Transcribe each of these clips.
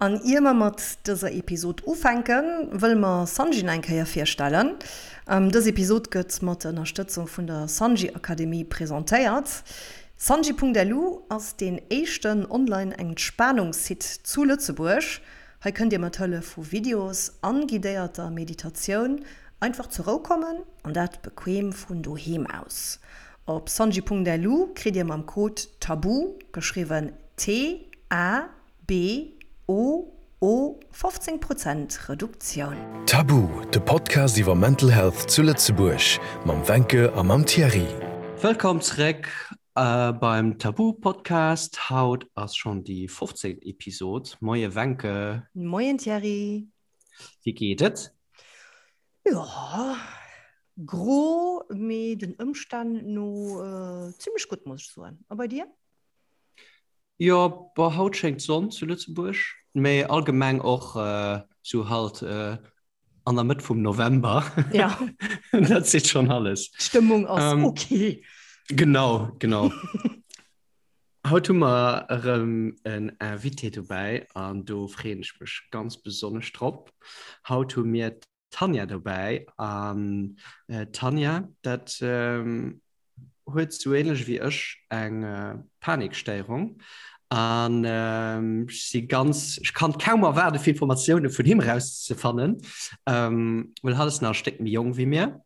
An ier mer mat dëser Episod ufänken, wëlle mer Sanji nach eng Kéier virstellen. Dës Episod gëtt mat der Ënnerstëtzung vun der Sanji Akademie presentéiert. Sanji.lu ass deen éischten online Entspanungssite zu Lëtzebuerg. Hei kënnt dir mat Hëllef vu Videos an guidéierter Meditatioun einfach zur Rou kommen, an dat bequem vun doheem aus. Op sanji.lu kritt dir mam Code TABOO, geschriwwen T-A B-O-O, 15 Prozent Reduktioun. Tabu, de Podcast iwwer Mental Health zu Lëtzebuerg mam Wencke a mam Thierry. Wëllkomm zeréck beim Tabu Podcast. Haut ass schonn déi 15. Episod. Moie Wencke. Moien Thierry. Wéi geet et? Jo, gro, mee den Ëmstänn no zimmlech gutt, muss ech soen. A bei dir? Jo, bon, haut schéngt d'Sonn zu Lëtzebuerg, mee allgemeng och sou halt an der Mëtt vum November. Ja. Dat seet schonn alles. D'Stëmmung ass ähm, okay. Genau, genau. Haut hu mer erëm en Invité dobäi an do freeën ech mech ganz besonnesch drop. Haut hu mir d'Tanja dobäi an d'Tanja, dat huet sou ähnlech wéi ech eng Panikstéierung an ech si ganz, ech kann kaum erwaarde fir Informatioune vun him erauszefannen, well hatt ass nach e Stéck méi jonk wéi mir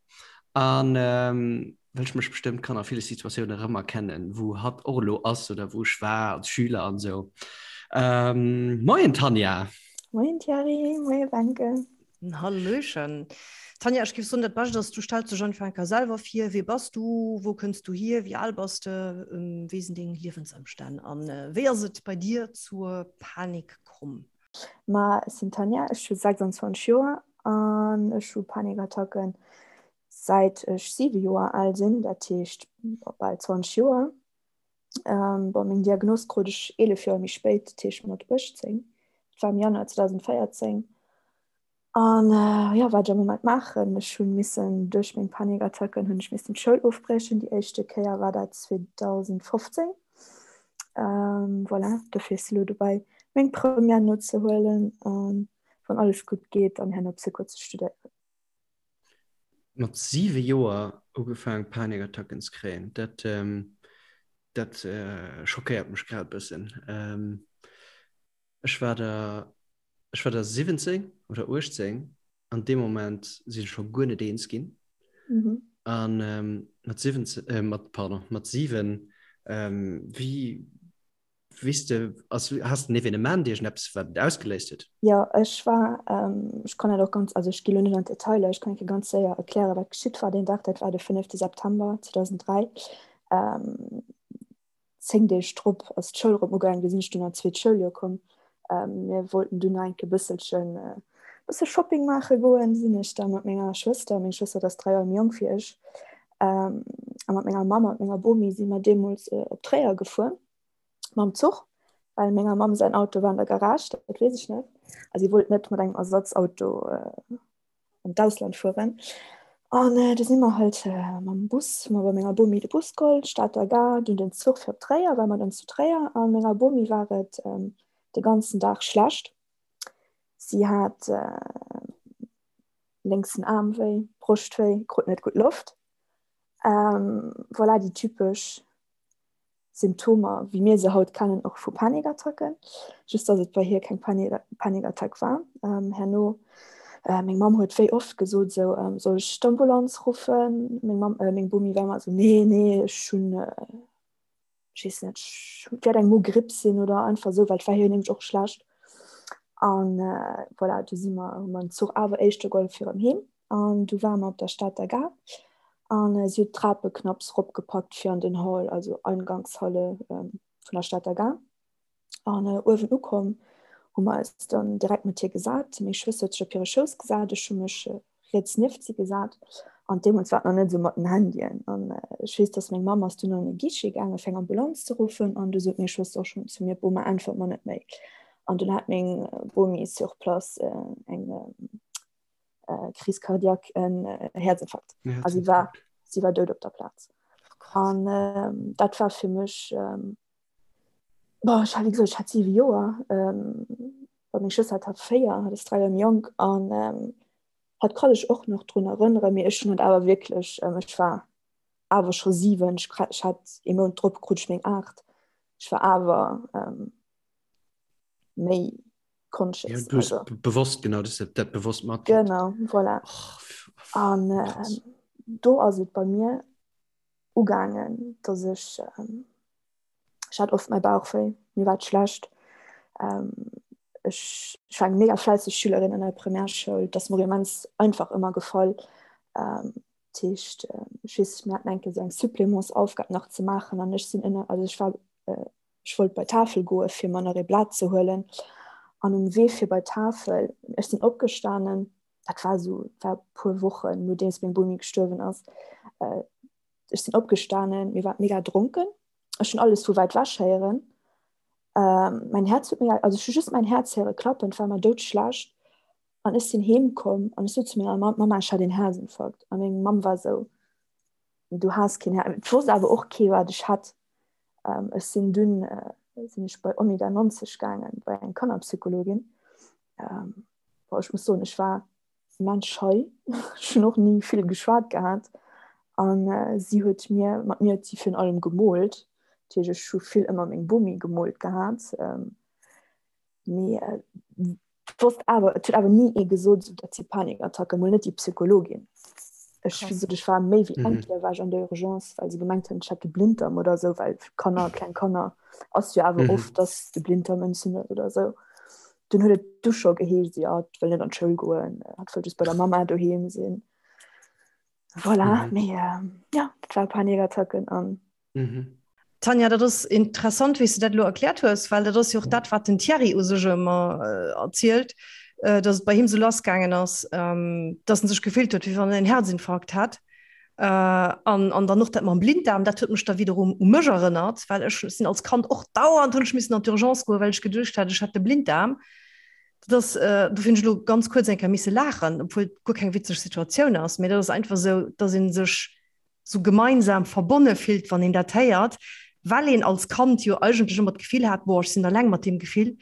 an well ech mech bestëmmt kann a ville Situatioune erëmerkennen, wou hatt och elo ass oder wou ech war als Schüler an esou. Moien Tanja! Moien Thierry, moie Wencke. Hallöchen. Tanja, ech géif soen, dat Bescht ass, du stells dech einfach eng Kéier selwer vir. Wie bass du? Wou kënns du hier? Wéi al bass de? Wéi sinn deng Liewensëmstänn? An wéi ass et bei dir zur Panik komm? Ma ech sinn d'Tanja, ech hu 26 Joer an ech hu Panikattacken säit ech 7 Joer al sinn, dat heescht bal 20 Joer. Bon, meng Diagnos krut ech 11 Joer méi spéit, dat heescht mat 18. Dat war am Januar 2014. An jo, wat ech am Moment maachen, ech hu missen duerch meng Panikattacken hunn ech missen d'Schoul ofbriechen. Déi éischte Kéier war dat 2015. Voilà, dofir si elo dobäi meng Première nozehuelen an wann alles gutt geet, dann herno Psycho ze studéieren. Mat 7 Joer ugefaang Panikattacken ze kréien, dat dat schockéiert mech grad e bëssen. Ech war der ech war der 17 oder 18 an deem Moment sinn ech scho guer net eens ginn. An mat 17 mat pardon mat 7 wéi Weess de, ass, has de en Evenement, iergendeppes, wat et ausgeléist huet? Jo, ech war, ech kann dat och ganz, also ech gi lo net an d'Detailer, ech kann enke ganz séier erklären, wat geschitt war deen Dag. Dat war de fënnefte September 2003. 10 Deeg drop ass d'Schoul erëm ugaangen, du sinn ech dunn an d'zweet Schouljoer komm. Mir wollten dunn nach enke bësselchen, bësse Shopping maache goen. Du sinn ech da mat menger Schwëster, meng Schwëster dat ass 3 Joer méi jonk wéi ech, a mat menger Mamm a mat menger Bomi si mer deemools op Tréier gefuer. mam Zuch, well menger Mamm säin Auto war an der Garage, dat weess ech net. A si wollt net mat engem Ersatzauto äh, an d'Ausland fueren. An äh, du si mer halt äh, mam Bus, hu mer bei menger Bomi de Bus geholl, Stater Gare, dunn den Zuch fir op Tréier, war mer dann zu Tréier. A menger Bomi war et ähm, de ganzen Dag schlecht. Si hat äh, lénksen Aarm wéi, Broscht wéi, krut net gutt Loft. Ähm, voilà, déi typesch Symptomer, wéi mir se haut kennen, och vu Panikattacken, just dass et bei hir keng Panikattack war. Herno, meng Mamm huet wéi oft gesot esou, soll ech d'Ambulanz ruffen? Meng Mamm, meng Bomi war ëmmer esou, nee, nee, ech hunn, ech weess net, et wäert eng Mogripp sinn oder einfach esou, well et war hir nämlech och schlecht. An voilà, du si mer, hu mer den Zuch awer éischter geholl fir erëm heem. An du ware mer op der Stater Gare an si huet d'Trape knapps ropgepackt fir an den Hall, also Eingangshalle vun der Stater Gare. An uewen ukomm hu mer eis dann direkt mat hir gesat. Meng Schwëster huet sech op hire Schouss gesat, ech hu mech riets nieft si gesat. An deemools war et nach net esou mat den Handyen. An ech weess, dass meng Mamm ass dunn an e Guichet gaangen, fir eng Ambulanz ze ruffen. An du sot meng Schwëster och schonn zu mir, Boma, äntwert mer net méi. An dunn hat meng Bomi sur place eng Crise cardiaque, en Häerzinfarkt. A si war, si war dout op der Plaz. An ähm, dat war fir mech, ähm, boah, ech hat, wéi gesot, ech hat siwe Joer. Ähm, Well meng Schwëster hat 4, hat ass 3 Joer méi jonk an hat kann ech och nach drun erënneren, mee ech hunn et awer wierklech, ech war awer scho 7, ech hat ee Mount drop krut ech meng 8, ech war awer méi conscious. Ja, du hues also. bewosst, genau, du hues dat bewosst mat. Genau, voilà. Oh, an äh, do ass et bei mir ugaangen, dass ech ähm, ech hat oft mäi Bauch wéi, mir war et schlecht. Ähm, ech, ech war eng mega fläisseg Schülerin an der Primärschoul, dat ass mir och immens einfach ëmmer gefall. Ähm, dat heescht, ech weess, mir haten eng Kéier esou eng Supplémentsaufgab nach ze maachen an ech sinn ënner, also ech war äh, ech wollt bei d'Tafel goe fir mer nach ee Blat ze huelen an um Wee fir bei d'Tafel, ech sinn opgestanen, dat war esou, war e puer Wochen nodeems meng Bomi gestuerwen ass, äh, ech sinn opgestanen, mir war mega dronken, ech hunn alles vu wäit wech héieren, ähm, mein Herz huet mega, also ech hu just mein Herz héiere klappen, et war mer doudschlecht an ech sinn heem komm an ech sot zu menger Mamm, Mama, ech hat een Herzinfarkt an meng Mamm war esou, du has keen Her, et wosst awer och kee wat ech hat. Ähm, ech sinn dunn äh, sinn ech bei Omega 90 gaangen, bei eng Kannerpsychologin. Ähm, boah, ech muss soen, ech war immens schei. Ech hunn och ni vill geschwat gehat. An äh, si huet mir, mat mir huet si virun allem gemoolt. Dat heescht, ech hu vill ëmmer meng Bomi gemoolt gehat. Ähm, mee äh, wosst awer, et huet awer ni ee gesot, esou dat si Panikattacken, mol net déi Psychologin. Ech, wéi gesot, ech war méi wéi eng Kéier war ech an der Urgence, well se gemengt hunn, ech hätt de Blinddarm oder esou, well Kanner, kleng Kanner ass jo awer oft, dass de Blinddarm entzündet oder esou. Dunn huet et du scho geheescht, jo, hatt wëll net an d'Schoul goen, hatt wëll just bei der Mamma doheem sinn. Voilà, mee ja, dat war Panikattacken an Mhm. Tanja, dat ass interessant, wéi s du dat elo erkläert hues, well dat ass jo och dat, wat den Thierry u sech ëmmer erzielt, datt et bei him esou lassgaangen ass, datt en sech gefillt huet, wéi wann en en Herzinfarkt hätt. An, an dann och dat mam Blinddarm, dat huet mech da wiederum u mech erënnert, well ech sinn als Kand och dauernd hunn ech missen an d'Urgence goen, well ech geduecht hat, ech hätt de Blinddarm. Dat ass, do hunn ech elo ganz kuerz eng Kéier misse laachen, obwuel et guer keng witzeg Situatioun ass, mee dat ass einfach esou, datt ee sech sou gemeinsam verbonne fillt, wann een dat héiert, well een als Kand jo eigentlech ëmmer d'Gefill hat, boah, ech sinn alleng mat deem Gefill,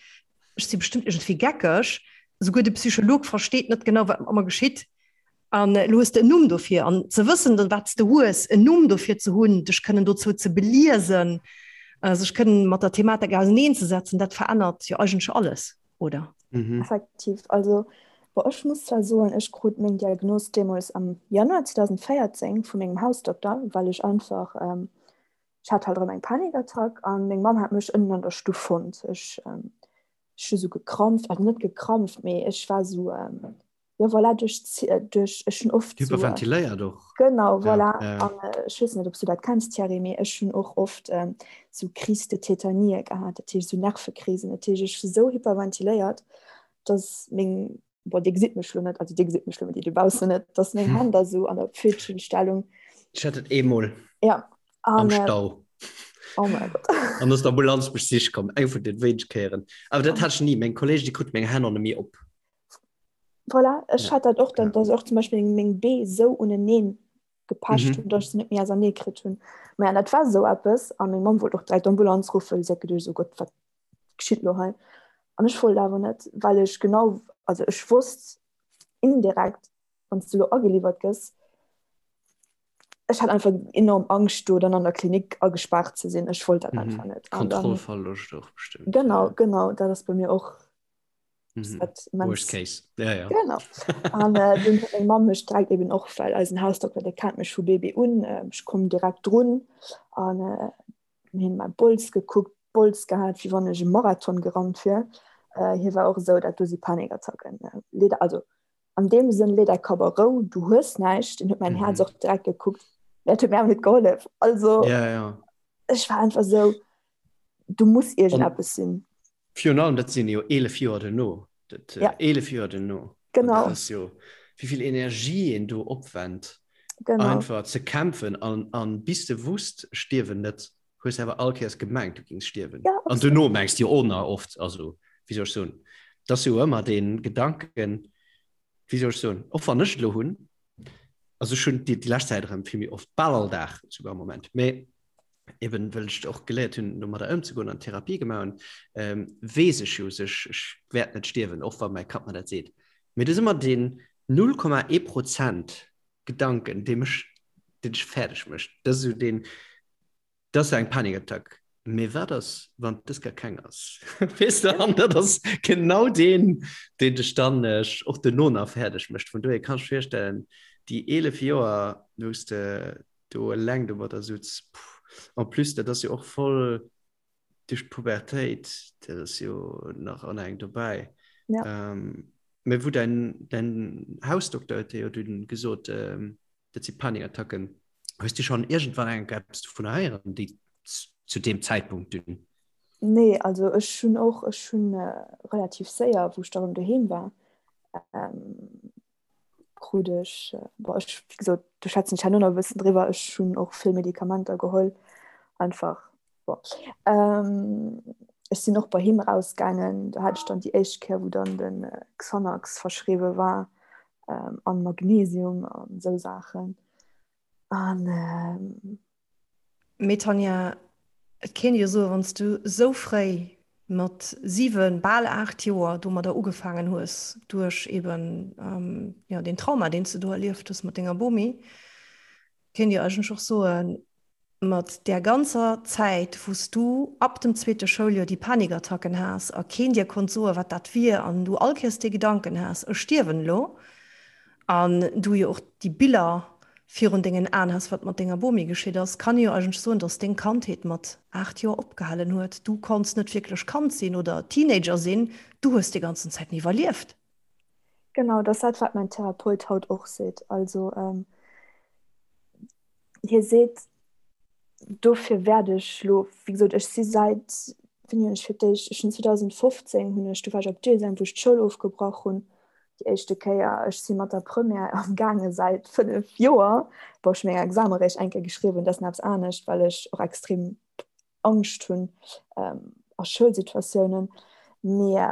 ech si bestëmmt iergendwéi geckeg, souguer de Psycholog versteet net genau, wat mat mer geschitt. An elo hues de en Numm dofir. An ze wëssen, wat s de hues, en Numm dofir ze hunn, dech kënnen dozou ze beliesen, sech kënnen mat der Thematik auserneenzesetzen, dat verännert jo eigentlech alles. oder? Mhm. Effektiv, also bon, ech muss zwar soen, ech krut meng Diagnos deemools am Januar 2014 vu mengem Hausdokter, well ech einfach, ähm, ech hat halt erëm eng Panikattack an meng Mamm hat mech ënnen an der Stuff fonnt. Ech, ähm, ech hu sou gekrampft, also net gekrampft, mee ech war sou, ähm, ja voilà, duerch duerch ech hunn oft hyperventiléiert och genau voilà ja, ja. An, äh, ech weess net ob du dat kenns Thierry mee ech hunn och oft ähm, sou Crise de Tétanie gehat dat heescht sou Nervekrisen dat heescht ech sou hyperventiléiert dass meng boah, Dir gesitt mech lo net also Dir gesitt mech lo mee déi dobaussen net dass meng Hänn da sou an der Pfötchenstellung Ech hat et eemol ja am an, äh, Stau oh mein Gott an ass d'Ambulanz mech sich komm eng vun den wéineg Kéieren awer dat hat ech ni meng Kolleegen déi kruten meng Hänn an méi op Voilà, ech ja. hat dat och dann, ja. dass och zum Beispiel meng Bee sou uneneen gepecht mhm. hunn, dass ich se net méi ausernee kritt hunn. Ma ja, dat war sou eppes a meng Mamm wollt och direkt d'Ambulanz ruffen, si hat geduecht, oh Gott, wat geschitt lo hei? An ech wollt awer net, well ech genau, also ech wosst indirekt, wann s du lo ageliwwert gëss, ech hat einfach enorm Angscht do dann an der Klinik agespaart ze sinn. Ech wollt dat mhm. einfach net. Kontrollverloscht och bestimmt. Genau, genau, dat ass bei mir och Mhm. Worst case. Ja, ja. Genau. An äh, dunn huet meng Mamm mech direkt eben och, well eisen Hausdokter, dee kennt mech vu Baby un, äh, ech komm direkt drun an äh, hien mäi Bols gekuckt, Bols gehat, wéi wann ech e Marathon gerannt wier. Äh, hie war och esou, dat do si Panikattacken. Äh, leet, also an deem Sënn, lee däi Kapp a Rou, du hues näischt. En huet mäin Häerz mhm. och direkt gekuckt. Dat huet mir awer net gehollef. Also ja, ja. ech war einfach esou, du muss iergendeppes sinn. Virun allem, dat sinn jo 11 Joer duerno. Dat, ja. 11 Joer duerno. Genau. Dat ass jo, wéi vill Energie een do opwennt, genau. einfach ze kämpfen an, an bis de wusst, stierwen net, hues awer all Kéiers gemengt, du gings stierwen. Ja, an duerno mengs du jo och nach oft, also, wéi soll ech soen, dat ass jo ëmmer dee Gedanken, wéi soll ech soen, och wann ech et elo hunn, also ech hunn déi, déi lescht Zäit erëm vill méi oft, bal all Dag souguer am Moment, mee. Eben well ech och geléiert hunn, domadder ëmzegoen an Therapie gemaach hunn, ähm, weess ech jo sech, ech wäert net stierwen, och wa mäi Kapp mer dat seet. Mee et ass ëmmer deen 0,1 Prozent Gedanken, dee mech, deen dech fäerdeg mécht. Dat ass esou deen, dat ass eng Panikattack. Mee wat ass, wann dës gar keng ass? Weess de, an dat ass genau deen, deen dech dann och duerno nach fäerdeg mécht. Vun dohier kann ech virstellen, déi 11 Joer, wou s de do eleng domadder sutz, puh. En plus, dat ass jo och voll duerch d'Pubertéit, dat ass jo nach an eng dobäi. Ja. Ähm, mä wou däin, däin Hausdokter huet dir jo dunn gesot, ähm, dat si Panikattacken. Hues du schonn iergendwann eng Kéier eppes dovunner héieren, déi zu deem Zäitpunkt dunn? Nee, also ech hunn och, ech hunn relativ séier, wou ech da rëm doheem war, ähm, krut ech, bon, ech, wéi gesot, do schwätzen ech herno nach e bëssen driwwer, ech hunn och vill Medikamenter geholl, einfach, bon. Ähm, ech sinn och bei him erausgaangen, do hat ech dann déi éischt Kéier, wou dann de Xanax verschriwwe war, ähm, an Magnesium an esou Saachen. An, ähm. Mee Tanja, et kéint ee jo soen, wann s du esou fréi mat 7, bal 8 Joer domadder ugefaangen hues, duerch eben jo deen Trauma, deen s du do erlieft hues mat denger Bomi, kéint ee jo eigentlech och soen, mat där ganzer Zäit, wou s du ab dem zweete Schouljoer déi Panikattacken has a keen dir konnt soen, wat dat wier an du all Kéiers dee Gedanken has, ech stierwen elo, an du jo och déi Biller virun dengen Aen has, wat mat denger Bomi geschitt ass, kann ee jo eigentlech soen, dass deng Kandheet mat 8 Joer opgehalen huet. Du konnts net wierklech Kand sinn oder Teenager sinn, du hues déi ganzen Zäiten iwwerlieft. Genau, dat ass dat, wat mäin Therapeut haut och seet. Also hie seet, dofir wäert ech lo, wéi gesot, ech si säit, wéini hunn ech fir d'éischt, ech hunn 2015 hunn ech, du war ech op Deuxième, wou ech d'Schoul ofgebrach hunn, déi éischte Kéier. Ech si mat der Première am gaange säit 5 Joer. Bon, ech hu meng Exame réischt eng Kéier geschriwwen, dat ass nach eppes anescht, well ech och extrem Angscht hunn a Schoulsituatiounen. Mee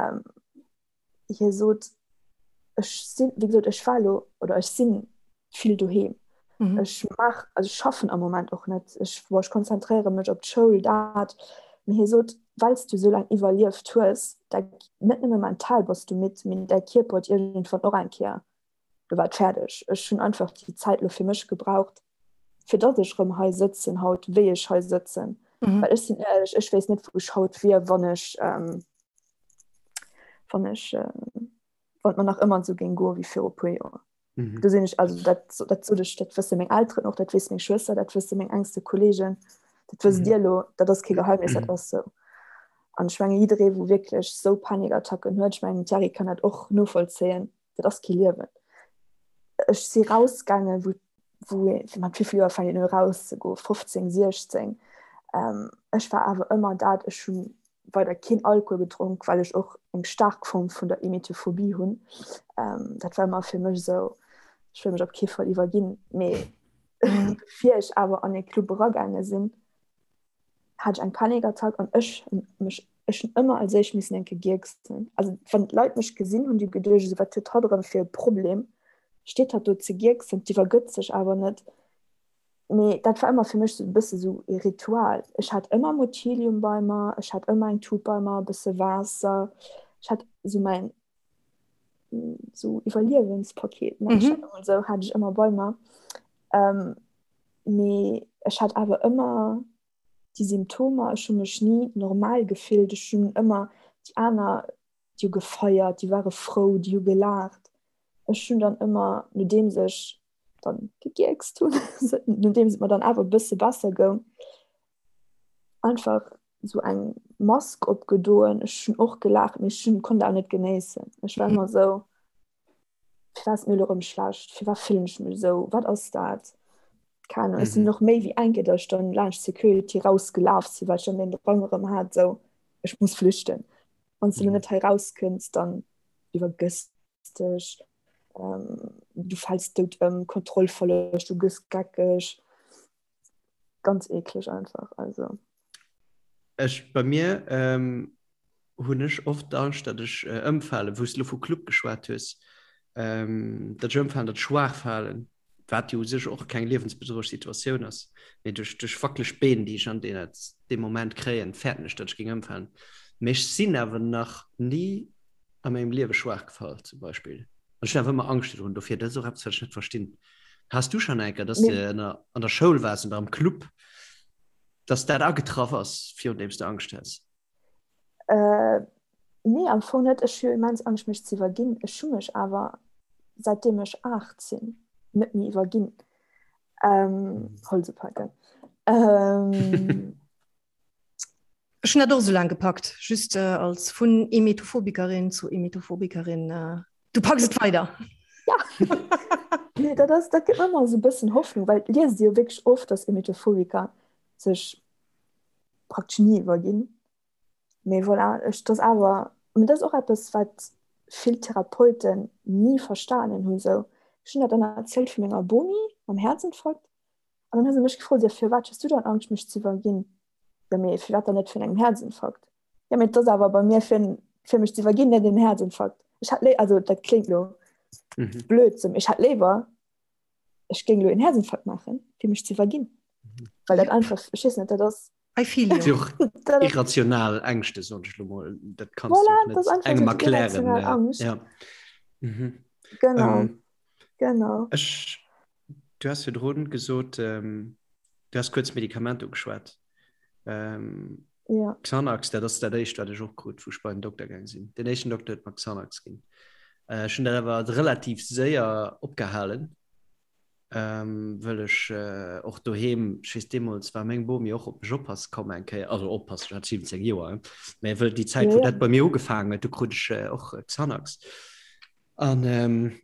hie sot, ech sinn, wéi gesot, ech war elo oder ech si vill doheem. Mhm. Ech maach, also ech schaffen am Moment och net. Ech, boah, ech konzentréiere mech op d'Schoul, dat. Mee hie sot, well s du esou laang iwwerlieft hues, da net nëmme mental bass du midd, mee däi Kierper huet iergendwann och eng Kéier do war et fäerdeg. Ech hunn einfach déi Zäit elo fir mech gebraucht, fir datt ech erëm hei sëtzen haut, wéi ech hei sëtzen. Mhm. Well ech sinn éierlech, ech weess net, wou ech haut wier, wann ech, ähm, wann ech, äh, wann et mer nach ëmmer esou géing goe wéi viru puer Joer. Mhm. Do sinn ech, also dat, dat sot ech, dat wësse meng Elteren och, dat weess meng Schwëster, dat wësse meng engste Kolleegen, dat wësst mhm. Dir elo, dat ass kee Geheimnis, dat mhm. ass sou. An ech menge jidderee, wou wierklech sou Panikattacken huet, ech mengen Thierry kann dat och novollzéien, dat ass kee Liewen. Ech si rausgaangen, wou, wou mat wéi vill Joer fänkt een u rauszegoen, 15, 16. Ähm, ech war awer ëmmer dat, ech hunn weider keen Alkohol gedronk, well ech och eng staark Form vun der Emetophobie hunn. Ähm, dat war ëmmer fir mech esou, ech wëll mech op kee Fall iwwerginn. Mee bevir ech awer an e Club eragaange sinn, hat ech eng Panikattack an ech hunn mech ech hunn ëmmer als éischt missen enke gierksen. Also wann d'Leit mech gesinn hunn, déi geduecht esou, wat huet hatt erëm fir e Problem, steet hatt do ze gierksen, d'iwwergëtt sech awer net. Mee dat war ëmmer fir mech sou e bësse sou e Ritual. Ech hat ëmmer Motilium bei mer, ech hat ëmmer eng Tut bei mer, e bësse Waasser, ech hat sou mäin sou Iwwerliewenspaket, nenn ech dat emol esou, hat ech ëmmer bei mer. Mee ech hat awer ëmmer déi Symptomer, ech hu mech ni normal gefillt, ech hunn ëmmer déi aner, déi hu gefeiert, déi ware frou, déi hu gelaacht. Ech hunn dann ëmmer, nodeems ech dann gegierkst hunn, nodeems et mer dann awer e bësse besser goung, einfach esou eng Mask opgedoen. Ech hunn och gelaacht, mee ech hunn, konnt awer net genéissen. Ech war ëmmer esou. Firwat ass et mir elo erëm schlecht? Firwat fillen ech mech esou? Wat ass dat? Keng Ahnung. Ech sinn mhm. och méi wéi eng Kéier, dass ech dann laanscht Security rausgelaf sinn, well ech dann den Drang erëm hat, esou, ech muss flüchten. Wann s du mhm. net hei rauskënns, dann iwwergëss dech, ähm, du fäls dout ëm, Kontrollverloscht, du gëss geckeg. Ganz ekleg einfach, also. Ech, bei mir ähm, hunn ech oft d'Angscht, datt ech äh, ëmfalen, wou s du lo vu Club geschwat hues, ähm, datt ech ëmfalen, datt ech schwaach falen. Wat jo u sech och keng liewensbedrohlech Situatioun ass, mee duerch duerch wackeleg Been, déi ech an deem Moment kréien, fäerten ech, datt ech géing ëmfalen. Mee ech sinn awer nach ni a mengem Liewe schwaach gefall zum Beispill. An ech hunn awer ëmmer Angscht virdrun. Dofir, dat ass och eppes, wat ech net verstinn. Has du schonn eng Kéier, datt s de an der Schoul waars oder am Club, datt dat agetraff ass, virun deem s de Angscht has? Äh, nee, am Fong net. Ech hu immens Angscht, mech ze iwwerginn. Ech hu mech awer, säitdeem ech 8 sinn, net méi iwwerginn. Ähm, Holz upaken. Ähm, Ech hunn dat och esou laang gepackt, just äh, als vun Emetophobikerin zu Emetophobikerin. Äh, du packs et weider. Ja. nee, dat ass, dat gëtt mir ëmmer esou e bëssen Hoffnung, well et liest ee jo wierklech oft, dass Emetophobiker sech praktesch ni iwwerginn. Mee voilà, ech, dat ass awer, mee dat ass och eppes, wat vill Therapeuten ni verstanen hunn esou. Ech hunn dat dann erzielt vu menger Bomi mam Häerzinfarkt an dann hu se mech gefrot, jo firwat hues du dann Angscht mech ze iwwerginn? Jo mee firwat dann net virun engem Häerzinfarkt? Jo mee et ass awer bei mir fir fir mech ze iwwerginn, net en Häerzinfarkt. Ech hätt léi, also dat kléngt lo blöd, sou, mee ech hätt léiwer ech géing lo en Häerzinfarkt maachen, fir mech ze iwwerginn. Well dat einfach, ech weess net, dat ass. I feel you. Och irrational Ängschte soen ech lo mol. Dat kanns du och net engem erklären. Angst. Ja. Mhm. Genau. Ähm, genau. Ech, du has virdrun gesot, ähm, du has kuerz Medikament ugeschwat. Ähm, ja. Xanax, dat ass dat éischt, wat ech och krut, wou ech bei den Dokter gaang sinn. Den éischten Dokter huet mer Xanax ginn. Äh, ech hunn dat awer relativ séier opgehalen. ähm, wëll ech äh, och doheem, ech weess deemools war meng Bomi och op mech oppasse komm eng Kéier, also oppassen, ech hat 17 Joer, mä wëll déi Zäit, wou dat bei mir ugefaangen huet, do krut ech äh, och Xanax. An ähm,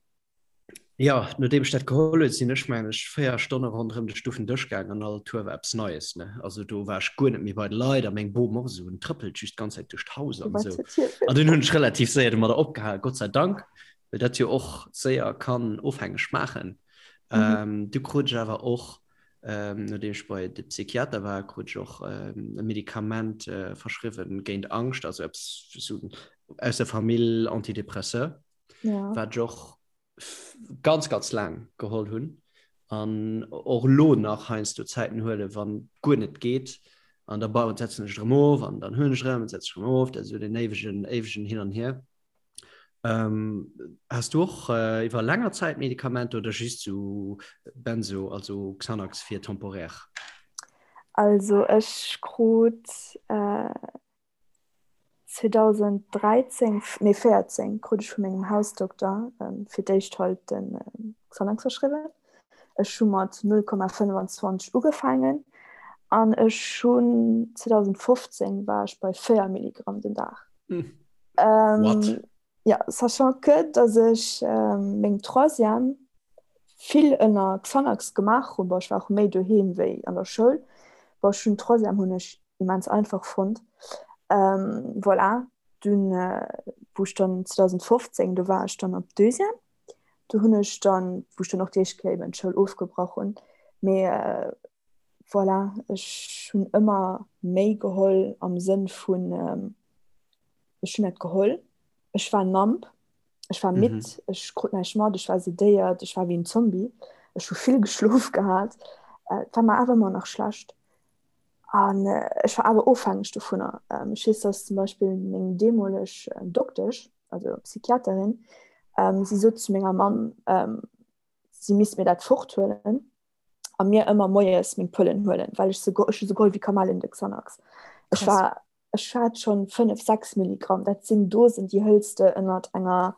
ja, nodeem ech dat geholl huet, sinn ech mengen ech 4 Stonne ronderëm de Stuffendësch gaangen an all Tour war eppes Neies, ne? Also do war ech guer net méi bei de Leit a meng Bom och esou, en trëppelt just d'ganz Zäit duerch d'Haus an esou. An dunn hunn ech relativ séier domadder opgehal, Gott sei Dank. well dat jo och séier kann ofhängeg maachen. Mhm. Ähm, du krut ech awer och, ähm, nodeem ech bei de Psychiater war, krut ech och ähm, e Medikament äh, verschriwwen géint Angscht, also eppes so aus der Famill Antidepresseur, ja. wat ech och ganz, ganz laang geholl hunn an och lo nach heiansdo Zäiten huele wann guer net geet an da bauen setzen ech erëm of an dann hunn ech erëm setzen ech erëm of, dat ass esou den éiwegen éiwegen Hin an Hier. Ähm, has du och äh, iwwer länger Zäit Medikamenter oder just so Benzo, also Xanax fir temporär? Also ech krut äh, 2013, nee 14 krut ech vu mengem Hausdokter ähm, fir d'éischt halt den äh, Xanax verschriwwen. Ech hu mat 0,25 ugefaangen an ech hunn 2015 war ech bei 4 Milligramm den Dag. Hm. Ähm, ja, sachant que, dass ech ähm, meng Troisième vill ënner Xanax gemaach hunn, bon, ech war och méi doheem wéi an der Schoul, bon, ech hunn Troisième hunn ech immens einfach fonnt. Ähm, voilà, dunn, äh, wou ech dann 2015, do war ech dann op Deuxième, do hunn ech dann, wou ech dann och déi éischt Kéier eben d'Schoul ofgebrach hunn, mee äh, voilà, ech hunn ëmmer méi geholl am Sënn vun, ähm, ech hunn dat geholl, ech war numb, ech war midd, mhm. ech krut näischt mat, ech war sedéiert, ech war wéi en Zombie, ech hu vill geschlof gehat, äh, et war mer awer ëmmer nach schlecht. An äh, ech war awer ofhängeg dovunner. Ähm, ech weess, dass zum Beispill meng deemoleg äh, Doktesch, also Psychiaterin, ähm, si sot zu menger Mamm, ähm, si misst mir dat forthuelen a mir ëmmer moies meng Pëllen huelen, well ech se ech hu se geholl wéi Kamellen de Xanax. Ech war ech hat schon 5, 6 Milligramm, dat sinn Dosen, déi hëls de ënnert enger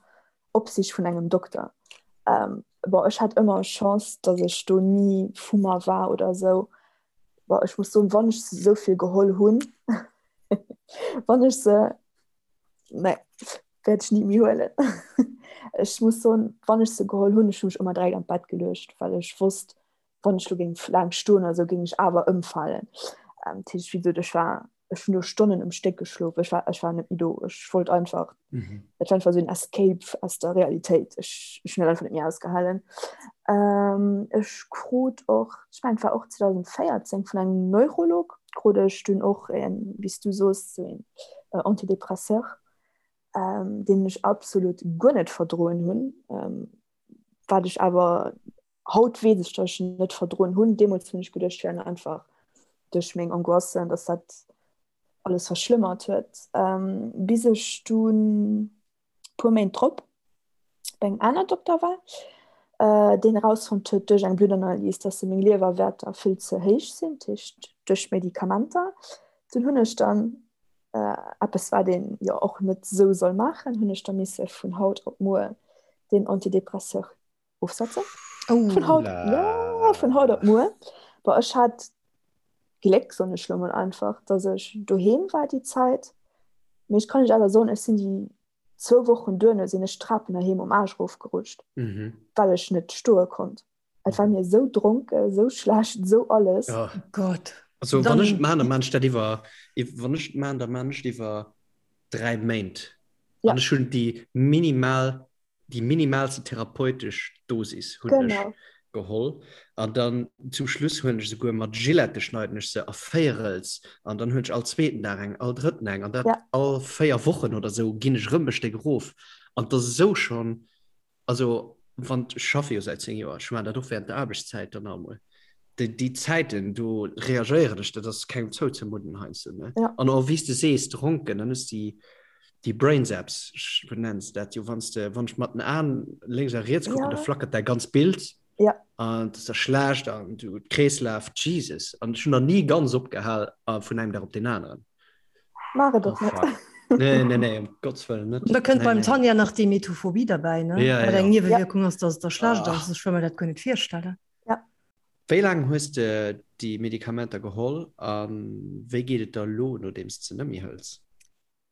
Opsicht vun engem Dokter. Ähm, bon, ech hat ëmmer Chance, datt ech do ni vu mer war oder esou. Bon, ech muss soen, wann ech se esou vill geholl hunn, wann ech se Nee, wäert ech ni méi huelen. Ech muss soen, wann ech se geholl hunn, ech hu mech ëmmer direkt an d'Bett geluecht, well ech wosst, wann ech lo géing laang stoen oder sou, géing ech awer ëmfalen. Ähm, dat heescht, wéi gesot, ech war, ech hunn do Stonnen um Stéck geschlof. Ech war, ech war net méi do. Ech wollt einfach, mhm. dat war einfach sou en Escape aus der Realitéit. Ech, ech hunn dat einfach net méi ausgehalen. Ähm, ech krut och, ech mengen, et war och 2014 vun engem Neurolog, krut ech dunn och en, wéi s du soos, sou een äh, Antidepresseur, ähm, deen ech absolut guer net verdroen hunn, ähm, wat ech awer. Haut weess ech, datt ech en net verdroen hunn. Deemools hunn ech geduecht, et wier einfach duerch meng Angoissen, datt dat alles verschlëmmert huet. Bis ech dunn puer Méint drop bei engem aner Dokter war, deen erausfonnt huet duerch eng Bluttanalys, dass meng Liewerwäerter vill ze héich sinn, dat heescht duerch d'Medikamenter. Dunn hunn ech dann, eppes wat een jo och net esou soll maachen, hunn ech da misse vun haut op muer deen Antidepresseur ofsetzen. Oh. Vun haut, ja, vun haut op muer. Bon, ech hat Gléck, soen ech lo mol einfach, dass ech doheem war déi Zäit. Mee ech kann lech awer soen, ech sinn déi zwou Wochen duerno sinn ech d'Trapen heiheem um Aarsch erofgerutscht, mhm. well ech net stoe konnt. Et war mir esou dronke, esou schlecht, esou alles. Ja. Oh Gott. Also wann ech man, dann man ech dat iwwer wann ech man, dann man ech iwwer 3 Méint. Ja. An ech hunn déi minimal déi minimalste therapeutesch Dosis hunn ech geholl an dann zum Schluss hunn ech souguer mat Gillette schneiden ech se a Véierels an dann hunn ech all zweeten Dag eng, all drëtten eng an dat ja. all 4 Wochen oder sou ginn ech rëm e Stéck erof an dat ass esou schonn, also wann ech schaffe jo säit 10 Joer, ech maachen dat och während der Aarbechtszäit dann emol. Déi, déi Zäiten do reagéieren ech, dat ass kengem zouzemudden heiansdo ne. Ja. An och wéi s de sees, dronken, dann hues de déi Brain Zaps, wéi nenns de dat jo, wann s de, wann ech mat den Aen lénks a riets kucken, Ja. da flackert däi ganz Bild Ja. an et ass da schlecht an du Kreeslaf, Jesus. An ech hunn nach ni ganz opgehal a vun engem Dag op deen aneren. Maach et Oh och net. fuck. Nee, nee, nee, um Gottes Wëllen net. Da kënnt Nee, beim nee. Tanja nach d'Emetophobie derbäi, ne? Ja, Wat ja. eng Niewewierkung ass, dass et der schlecht Ah. ass. Ech wëll mer dat guer net virstellen. Ja. Wéi laang hues de déi Medikamenter geholl a wéi geet et der elo, nodeems de se net méi hëls?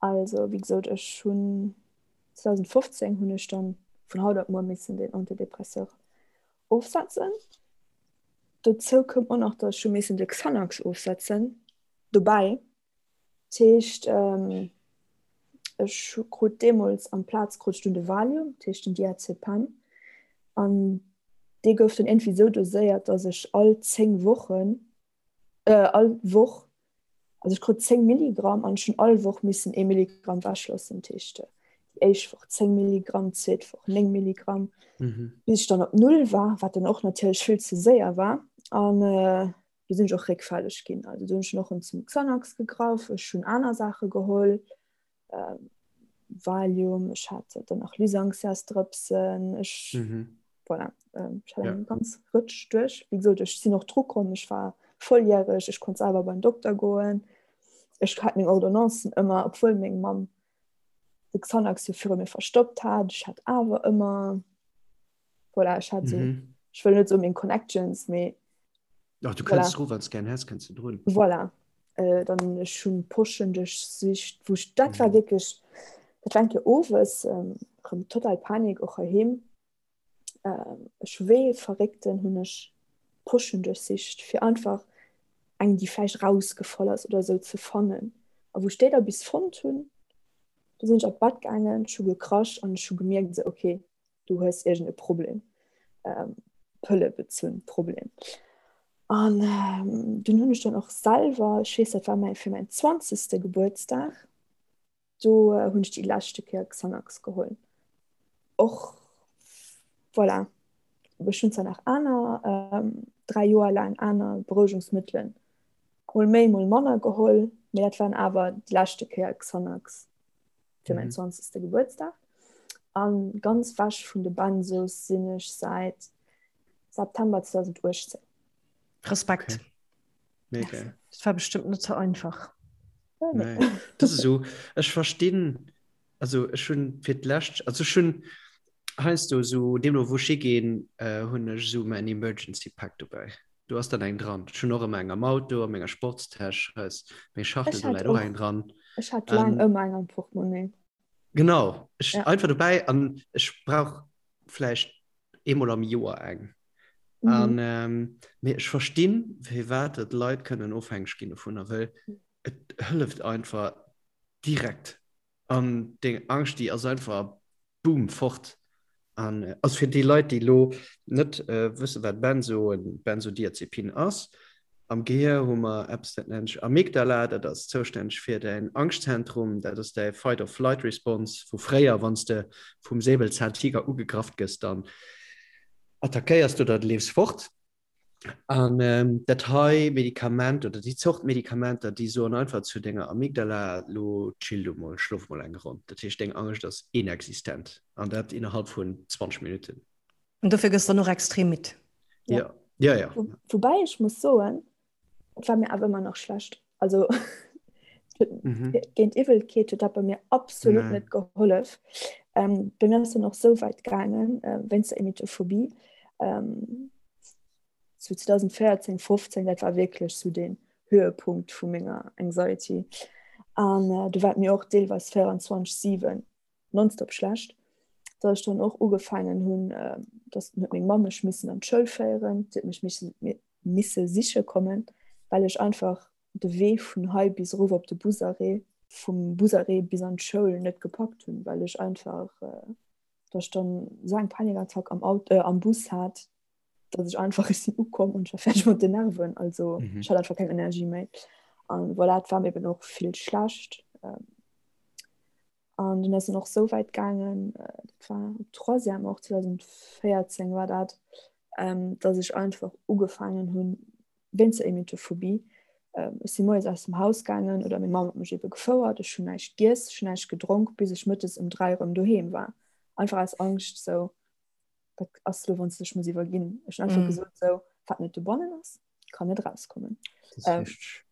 Also wéi gesot, ech hunn 2015 hunn ech dann vun haut op muer missen deen Antidepresseur ofsetzen. Dozou koum och nach, datt ech hu missen de Xanax ofsetzen dobäi. Dat heescht, ech krut deemools amplaz krut ech dunn de Valium, dat heescht den Diazepam. An dee gouf dann iergendwéi esou doséiert, datt ech all 10 Wochen, all Woch, also ech krut 10 Milligramm an ech hunn all Woch missen ee Milligramm wechloossen. Dat heescht, déi éischt Woch 10 Milligramm, d'zweet Woch 9 Milligramm, bis ech dann op Null war, wat dann och natierlech vill ze séier war. An do sinn ech och réckfälleg ginn. Also do hunn ech och erëm zum Xanax gegraff, ech hunn aner Saache geholl, ähm, Valium, ech hat dann nach Lysanxias-Drëpsen, ech mhm. voilà, ähm, ech hat ja. eng ganz Rëtsch duerch. Wéi gesot, ech sinn och dru komm, ech war volljäreg, ech konnt selwer beim Dokter goen. Ech hat meng Ordonnancen ëmmer, obwuel meng Mamm de Xanax jo viru mir verstoppt hat. Ech hat awer ëmmer voilà, ech hat so, mhm. ech wëll net so meng Connections, mee Ach, du kënns voilà. wann gern häss kënns du drun. Voilà. Äh, dann ech hunn Poschen duerchsicht, wou ich, dat war mhm. wirklich dat war enke owes ähm, rëm total Panik och heiheem. Ähm, ech wéi Verréckten hunn ech Poschen duerchsicht, fir einfach eng, déi vläicht rausgefall ass oder sou ze fannen. A wou ech déi da bis fonnt hunn, du sinn ech an d'Bett gaangen, ech hu gekrasch an ech hu gemierkt esou, okay, du hues iergend e Problem, ähm, Pëllebezunn Problem. An ähm, dunn hunn ech dann och selwer, ech weess, dat war mäi fir mäin zwanzegste Gebuertsdag, do äh, hunn ech déi leschte Kéier Xanax geholl. Och voilà, ech hunn zwar nach aner ähm, 3 Joer laang aner Berouegungsmëttelen mol méi, mol manner geholl, mee dat waren awer déi leschte Kéier Xanax. fir mäin 20. Gebuertsdag. An ganz wech vun de Benzos sinn ech säit September 2018. Respekt. Okay. Mega. Dat war bestëmmt net sou einfach. Nee. Dat ass esou, ech verstinn, also ech hunn fir d'lescht, also ech hunn heiansdo esou, deemno wou ech higinn, hunn ech esou mäin Emergency Pack dobäi. Do ass dann eng dran. Ech hunn och ëmmer eng am Auto, a menger Sportstäsch, hei ass meng Schachtel, Ech do hat läit och och, eng dran. ech hat laang An ëmmer eng am Portemonnaie. genau, ech Ja. einfach dobäi an ech brauch vläicht eemol am Joer eng. An Mhm. ähm, mee ech verstinn, firwat dat Leit kënnen ofhängeg ginn dovunner, well et hëlleft einfach direkt. An deng Angscht, déi ass einfach boom, fort. An also fir déi Leit, déi elo net wëssen, wat Benzo, en Benzodiazepin ass, am Gehier hu mer eppes, dat nennt sech Amygdala, dat ass zoustänneg fir däin Angschtzentrum, dat ass däi Fight-or-Flight-Response vu fréier, wann s de vum Säbelzahntiger ugegraff gëss, dann. Attackéiers de oder de leefs fort. An ähm, dat hei Medikament oder déi Zort Medikamenter, déi soen einfach zu denger Amygdala, lo chill du mol, schlof mol eng Ronn. Dat heescht, deng Angscht ass inexistent an dat innerhalb vun 20 Minutten. An dofir gëss dann och extrem midd. Ja, ja, ja. Wo, woubäi ech muss soen, et war mir awer ëmmer nach schlecht. Also mhm. géint Iwwelkeet huet dat bei mir absolut nee. net gehollef. Ähm, bei mir ass dann och sou wäit gaangen, äh, wéinst der Emetophobie. Ähm, zu 2014, 15, dat war wierklech sou den Höhepunkt vu menger Anxiety. An äh, du war mir och deelweis 24/7 nonstop schlecht, dass ech dann och ugefaangen hunn, dass huet meng Mamm mech missen an d'Schoul féieren, si huet mech misse misse siche kommen, well ech einfach de Wee vun hei bis erof op de Busarrêt, vum Busarrêt bis an d'Schoul net gepackt hunn, well ech einfach, dass ech dann esou eng Panikattack am Auto, am Bus hat, dass ech einfach, ech sinn ukomm an ech war fäerdeg mat den Nerven, also ech hat einfach keng Energie méi. An voilà, et war mir eben och vill schlecht. An dunn ass en och sou wäit gaangen, dat war op Troisième och, 2014 war dat, dass ech einfach ugefaangen hunn, wéinst der Emetophobie, ech si moies aus dem Haus gaangen oder meng Mamm huet mech ebe gefouert, ech hunn näischt giess, ech hunn näischt gedronk, bis ech mëttes ëm 3 erëm doheem war. Einfach aus Angscht, sou, wat ass elo, wann s de dech muss iwwerginn? Ech hunn einfach gesot, sou, wat net dobannen ass, kann net rauskommen.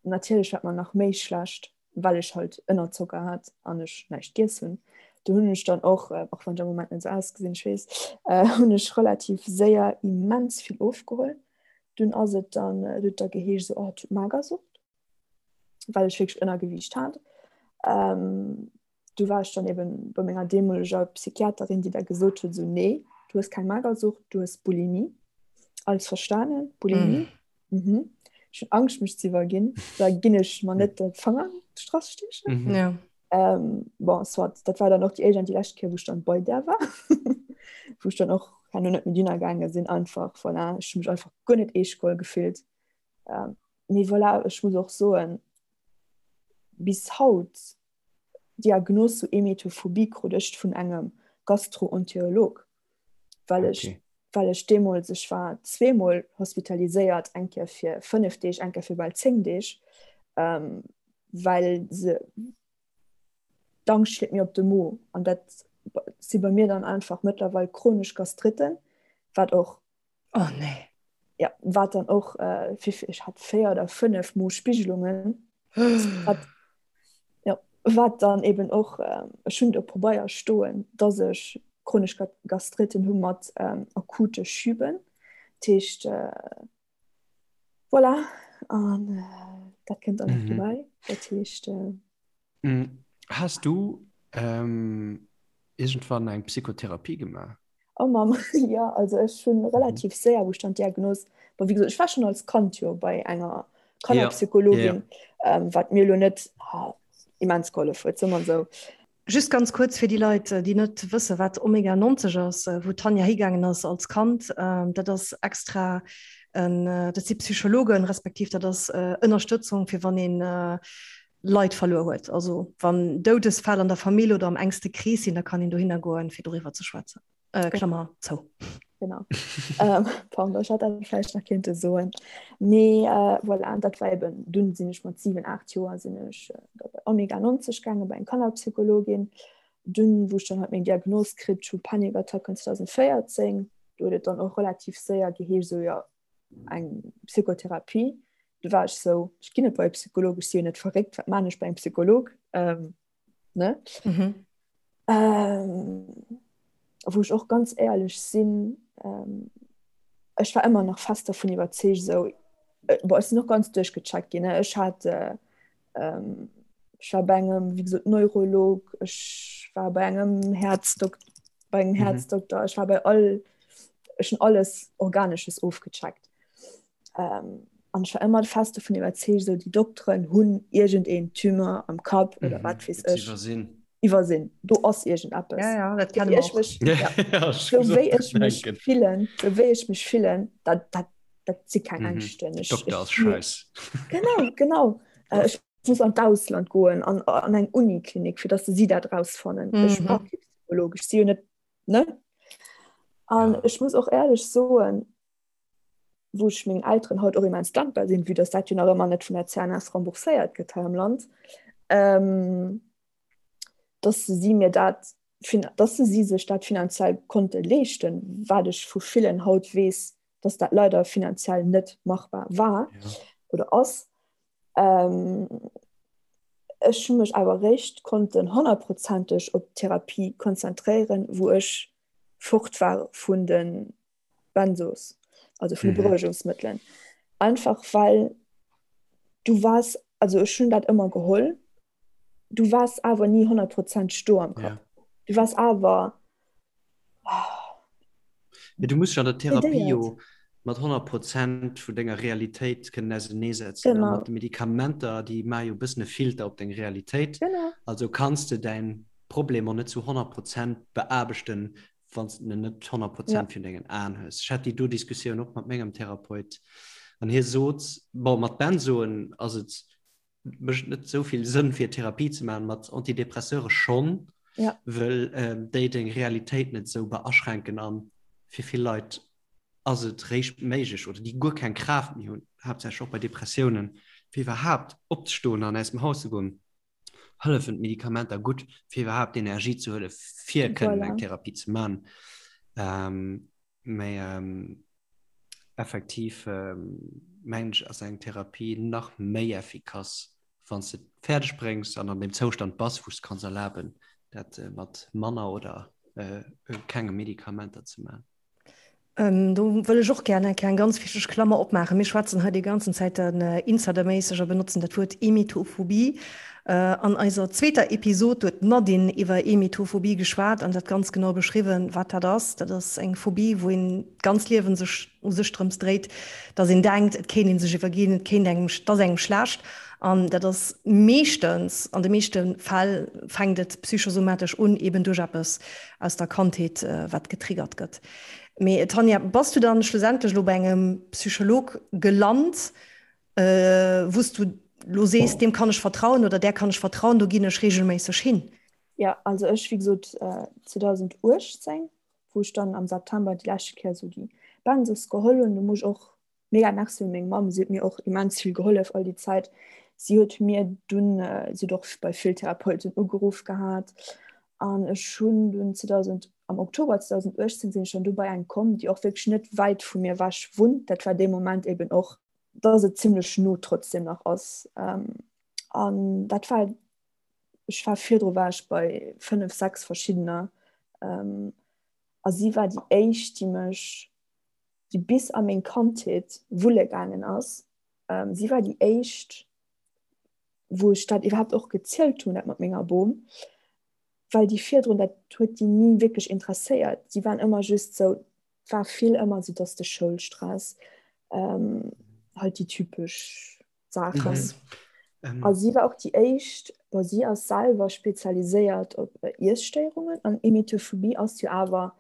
Natierlech war et mer nach méi schlecht, well ech halt Ënnerzocker hat an ech näischt giess hunn. Do hunn ech dann och, och wann ech am Moment net esou ausgesinn, ech weess, hunn ech relativ séier immens vill ofgeholl. Dunn ass et dann, et huet da geheescht esou, oh, et huet Magersucht, well ech wierklech Ënnergewiicht hat. Du war ech dann eben bei menger deemoleger Psychiaterin, déi da gesot huet, esou, nee, du hues keng Magersucht, du hues Bulimie. Alles verstanen, Bulimie. Mm. Mhm. Ech hunn Angscht mech ze iwwerginn, da ginn ech mer net de Fanger an d'Strass stiechen. Mhm. Ja. Ähm, bon, soit, dat war dann och déi éischt an déi lescht Kéier, wou ech dann bei där war. wou ech dann och herno net méi dunner gaange sinn, einfach, voilà, ech hu mech einfach guer net eescht geholl gefillt. Ähm, mee voilà, ech muss och soen, bis haut Diagnos zu Emetophobie krut ech vun engem Gastroenterolog, well ech, okay. well ech deemools, ech war zweemol hospitaliséiert, eng Kéier fir 5 Deeg, eng Kéier fir bal 10 Deeg, ähm, well se d'Angscht schléit mir op de Mo an dat si bei mir dann einfach mëttlerweil chronesch Gastritten, wat och Oh nee. Ja, wat dann och äh, ech hat 4 oder 5 Mo Spigelungen. Wat, ja, wat dann eben och äh, ech hunn do Probeier stoen, dass ech chronesch Gastritten hu mat ähm, akute Schüben. Dat heescht äh, voilà an äh, dat kënnt dann nach mhm. dobäi. Dat heescht äh, mm. Has du ähm, irgendwann eng Psychotherapie gemaach? Oh Mamm, jo, also ech hunn relativ séier, wou ech dann d'Diagnos, bon wéi gesot, ech war schonn als Kand jo bei enger Kannerpsychologin, wat mir elo net immens gehollef huet, soe mer esou. Just ganz kuerz fir déi Leit, déi net wësse wat Omega 90 ass, wou d'Tanja higaangen ass als Kand, dat ass extra en, dat si Psychologen, respektiv dat ass Ënnerstëtzung fir wann een Leit verluer huet. Also wann Doudesfäll an der Famill oder am engste Krees sinn, da kann een dohinner goen, fir doriwwer ze schwätzen. Äh, Klammer zou. Genau. ähm, pardon, ech hat dat vläicht nach kéinte soen. Mee äh, voilà, dat war eben, dunn sinn ech mat 7, 8 Joer sinn ech äh, da bei Omega 90 gaange bei eng Kannerpsychologin. Dunn, wou ech dann halt meng Diagnos kritt hu, Panikattacken 2014, do huet et dann och relativ séier geheescht, sou jo, eng Psychotherapie. Du war ech sou, ech ginn net bei e Psycholog, ech si jo net verréckt, wat man ech bei engem Psycholog? Ähm, ne? Mhm. Ähm, wou ech och ganz éierlech sinn, ähm, ech war ëmmer nach fest davon iwwerzeegt, sou, äh, boah, ech sinn och ganz duerchgecheckt ginn, ne? Ech hat, äh, ähm, ech war bei engem, wéi gesot, Neurolog, ech war bei engem Häerzdok bei engem mhm. Herzdokter, ech war bei all, ech hunn alles Organesches ofgecheckt. Ähm, an ech war ëmmer fest davon iwwerzeegt, so déi Dokteren hunn iergendeen Tumeur am Kapp oder mhm. wat weess ech. Iwwersinn. Iwwersinn. Do ass iergendeppes. Ja, ja, dat kenne ech mech. Ja. Ja, so wéi ech mech fillen, so wéi ech mech fillen, dat, dat, dat si keng mhm. Ängschten. Ich, Dokter ass scheiß. Genau, genau. Äh, ech muss an d'Ausland goen, an, an eng Uniklinik, fir dass se si dat rausfannen. Mhm. Ech brauch kee Psycholog, ech si jo net, ne? An ja. ech muss och éierlech soen, wou ech mengen Elteren haut och immens dankbar sinn, vue dass dat jo nach ëmmer net vun der CNS rembourséiert gëtt hei am Land, ähm, dass si mir dat, dass si sech dat finanziell konnte leeschten, wat ech vu villen haut weess, dass dat leider finanziell net machbar war ja. oder ass. Ähm, ech hu mech awer réischt konnten honnertprozenteg op d'Therapie konzentréieren, wou ech fort war vun de Benzos, also vun de mhm. Beruhigungsmëttelen. Einfach well du wars, also ech hunn dat ëmmer geholl, du wars awer ni honnertprozenteg do am Kapp. Ja. Du wars awer Ja, du musst an der Therapie jo mat 100 Prozent vun denger Realitéit kënnen auseneesetzen. Genau. Mat de Medikamenter, déi maache jo e bëssen e Filter op deng Realitéit. Genau. Also kanns de däin Problem och net zu 100 Prozent beaarbechten, wann s de en net 100 Prozent ja. virun dengen Aen hues. Ech hat déi do Diskussioun och mat mengem Therapeut an hie sot, bon, mat Benzoen ass et mécht net esou vill Sënn fir Therapie ze maachen, mat Antidepresseure schonn, ja. well äh, déi deng Realitéit net esou beaschränken an fir vill Leit ass et réischt méiglech oder déi guer keng Kraaft méi hunn, haaptsächlech och bei Depressiounen, fir iwwerhaapt opzestoen an aus dem Haus ze goen, hëllefen d'Medikamenter gutt, fir iwwerhaapt Energie ze huelen, fir kënnen eng Therapie ze maachen. Ähm, Mee effektiv mengen ech ass eng Therapie nach méi effikass, wann s de et fäerdeg bréngs an an deem Zoustand bass, wou s de kanns erlaben, dat mat manner oder kenge Medikamenter ze maachen. Do wëll ech och gär eng kleng ganz wichteg Klammer opmaachen. Mir schwätzen hei déi ganzen Zäit insiderméisseg a benotzen dat Wuert Emetophobie. An eiser zweeter Episod huet d'Nadine iwwer Emetophobie geschwat an dat ganz genau beschriwwen, wat dat ass. Dat ass eng Phobie, wou een d'ganz Liewen sech u sech drëms dréit, dass een denkt, et kéint een sech iwwerginn, et kéint engem, et ass engem schlecht. An dat ass meeschtens, an de meeschte Fäll fänkt et psychosomatesch un, eben duerch eppes aus der Kandheet, wat getriggert gëtt. Mee Tanja, bass du dann schlussendlech elo bei engem Psycholog gelant, wou s du lo sees, deem kann ech vertrauen oder där kann ech vertrauen, do ginn ech reegelméisseg hin? Jo, also ech, wéi gesot, 2018, wou ech dann am September déi leschte Kéier esou déi Benzos geholl hunn, do muss ech och mega Merci un meng Mamm, si huet mir och immens vill gehollef all déi Zäit. Si huet mir dunn, si huet och bei vill Therapeuten ugeruff gehat an ech hunn dunn 2000, am Oktober 2018 sinn ech dann du bei eng komm, déi och wierklech net wäit vu mir ewech wunnt. Dat war dee Moment eben och, dass et zimmlech no trotzdem nach ass. An dat war, ech war virdru war ech bei 5, 6 verschiddener a si war déi éischt, déi mech, déi bis a meng Kandheet wulle gaangen ass. Si war déi éischt, wou ech dat iwwerhaapt och gezielt hunn, dat mat menger Bom. well déi virdrun, dat huet déi ni wierklech interesséiert. Si waren ëmmer just sou, et war vill ëmmer sou, dass de Schoulstress, ähm, halt déi typesch Saachen. Mhm. A si war och déi éischt, bon, si ass selwer spezialiséiert op Iesstéierungen an Emetophobie ass jo awer,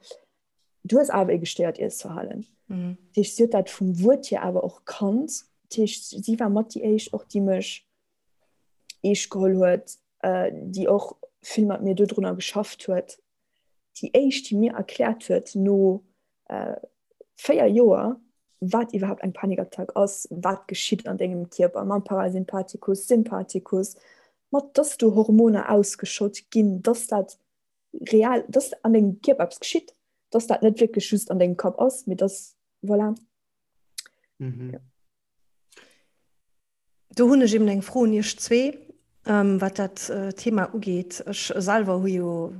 du hues awer e gestéiert Iessverhalen. Mhm. Dat heescht, si huet dat vum Wuert hier awer och kannt. Dat heescht, si war mat déi éischt och, déi mech eescht geholl huet, déi och vill mat mir dodrunner geschafft huet, déi éischt, déi mir erkläert huet no 4 Joer, wat iwwerhaapt eng Panikattack ass, wat geschitt an dengem Kierper mam Parasympathikus, Sympathikus, mat dass do Hormoner ausgeschott ginn, dass dat real, dass an dengem Kierper eppes geschitt, dass dat net wierklech just an dengem Kapp ass, mee dass, voilà. Mhm. Ja. Do hunn ech eben eng Fro un Iech zwee, wat dat Thema ugeet. Ech selwer hu jo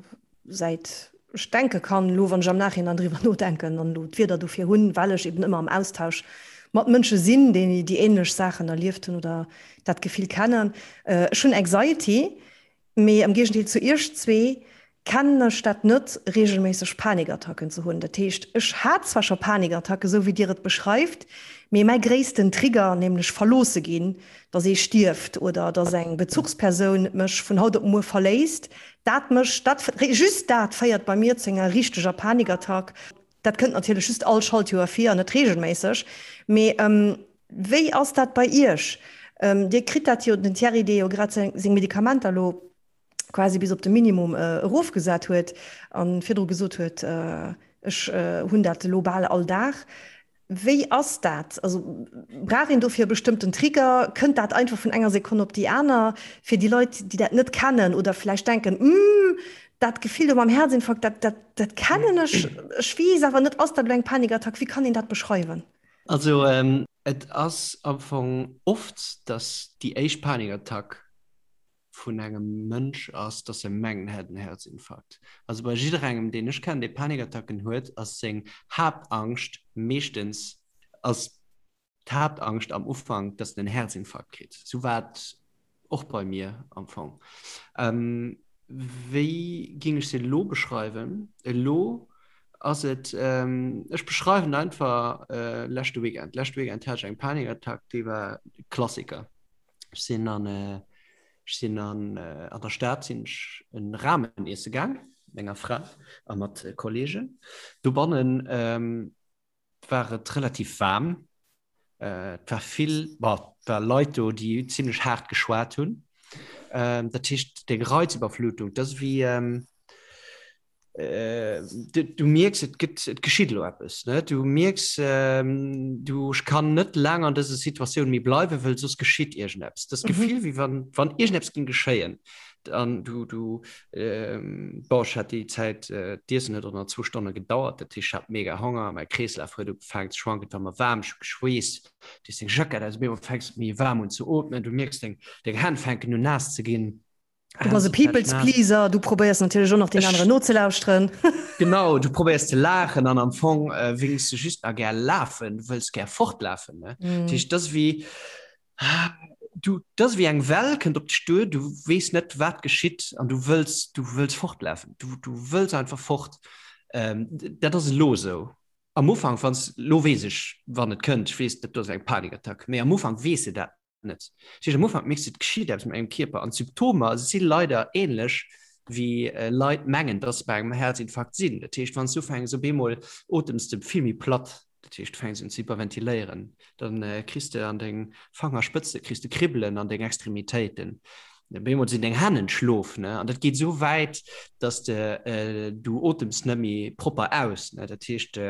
säit ech denke kann, elo wann ech am Nachhinein driwwer nodenken an elo d'Wierder dofir hunn, well ech eben ëmmer am Austausch mat Mënsche sinn, déi déi änlech Saachen erlieft hunn oder dat Gefill kennen. Ech hunn Anxiety, Mee am Géigendeel zu iech zwee kennen ech dat net, reegelméisseg Panikattacken ze hunn. Dat heescht, ech hat zwar scho Panikattacken, esou wéi dir et beschreift, mee mäi gréissten Trigger, nämlech verloosse ginn, dass ee stierft oder dass eng Bezuchspersoun mech vun haut op muer verléisst, dat mécht, dat, just dat féiert bei mir zu enger richteger Panikattack. Dat kënnt natierlech just all Schaltjoer vir an net reegelméisseg. Mee wéi ass dat bei Iech? Dir kritt dat jo, den Thierry, dee jo grad seng Medikamenter elo quasi bis op de Minimum erofgesat huet a virdru gesot huet, Ech hunn dat elo bal all Dag. Wéi ass dat? Also brauch een dofir e bestëmmten Trigger? Kënnt dat einfach vun enger Sekonn op déi aner? Fir déi Leit, déi dat net kennen oder vläicht denken, Hm, dat Gefill do mam Herzinfarkt, dat, dat, dat kennen ech, ech weess awer net, ass dat elo eng Panikattack? Wéi kann een dat beschreiwen? Also et ass am Fong oft, dass déi éischt Panikattack vun engem Mënsch ass, dass e mengt, en hätt en Herzinfarkt. Also bei jidderengem, deen ech kennen, dee Panikattacken huet, ass seng Haaptangscht meeschtens, ass d'Haaptangscht am Ufank, dass en en Herzinfarkt kritt. Sou war et och bei mir am Fong. Wéi géing ech se elo beschreiwen? Elo ass et, ech beschreiwen einfach leschte Weekend. Leschte Weekend hat ech eng Panikattack, déi war Klassiker. Ech sinn an, ech sinn an, an der Stad sinn ech en Ramen iesse gaang, mat menger Fra a mat Kollegen. Dobannen war et relativ waarm. Et war vill, bon, et war Leit do, déi zimlech haart geschwat hunn. Dat heescht, deng Reizüberflutung, dat ass wéi, Du, du mierks, et gëtt, et geschitt elo eppes, ne? Du mierks, du, ech kann net laang an dëser Situatioun méi bleiwen, wëll soss geschitt iergendeppes. Das Gefill, wéi wann, wann iergendeppes géing geschéien. An du, du, bon, ech hat déi Zäit, d'Iessen huet och nach zwou Stonne gedauert, dat heescht, ech hat mega Honger, mäi Kreeslaf huet ugefaangen ze schwanken, et war mer waarm, ech hu geschweesst, du hues deng Jackett aus, op eemol fänks de méi waarm un ze ootmen, du mierks, deng, deng Hänn fänken un naass ze ginn. Du bass e People's Pleaser, du probéiers natierlech och nach den aneren nozelauschteren. Genau, du probéiers ze laachen an am Fong wéngs de just nach gär lafen, du wëlls gär fortlafen. Ne? Mm. Dat heescht, dat ass wéi, du, dat ass wéi eng Well kënnt op dech duer, du weess net, wat geschitt an du wëlls, du wëlls fortlafen. Du, du wëlls einfach fort. Ähm, dat ass elo esou. Am Ufank, wann s, lo weess ech, wann et kënnt, ech weess, dat do ass eng Panikattack, mee am Ufank weess de dat net. Dat heescht, am Ufank mierks du, et geschitt eppes mat mengem Kierper an d'Symptomer si leider änlech wéi Leit mengen, dass se bei engem Herzinfarkt sinn. Dat heescht, wann s du ufänks, op eemol otems de vill méi platt, dat heescht, du fänks un ze hyperventiléieren, dann kriss de an deng Fangerspëtze kriss de Kribbelen an deng Extremitéiten, op eemol sinn deng Hänn entschlof, ne, an dat geet esou wäit, dass de du otems net méi propper aus, ne, dat heescht,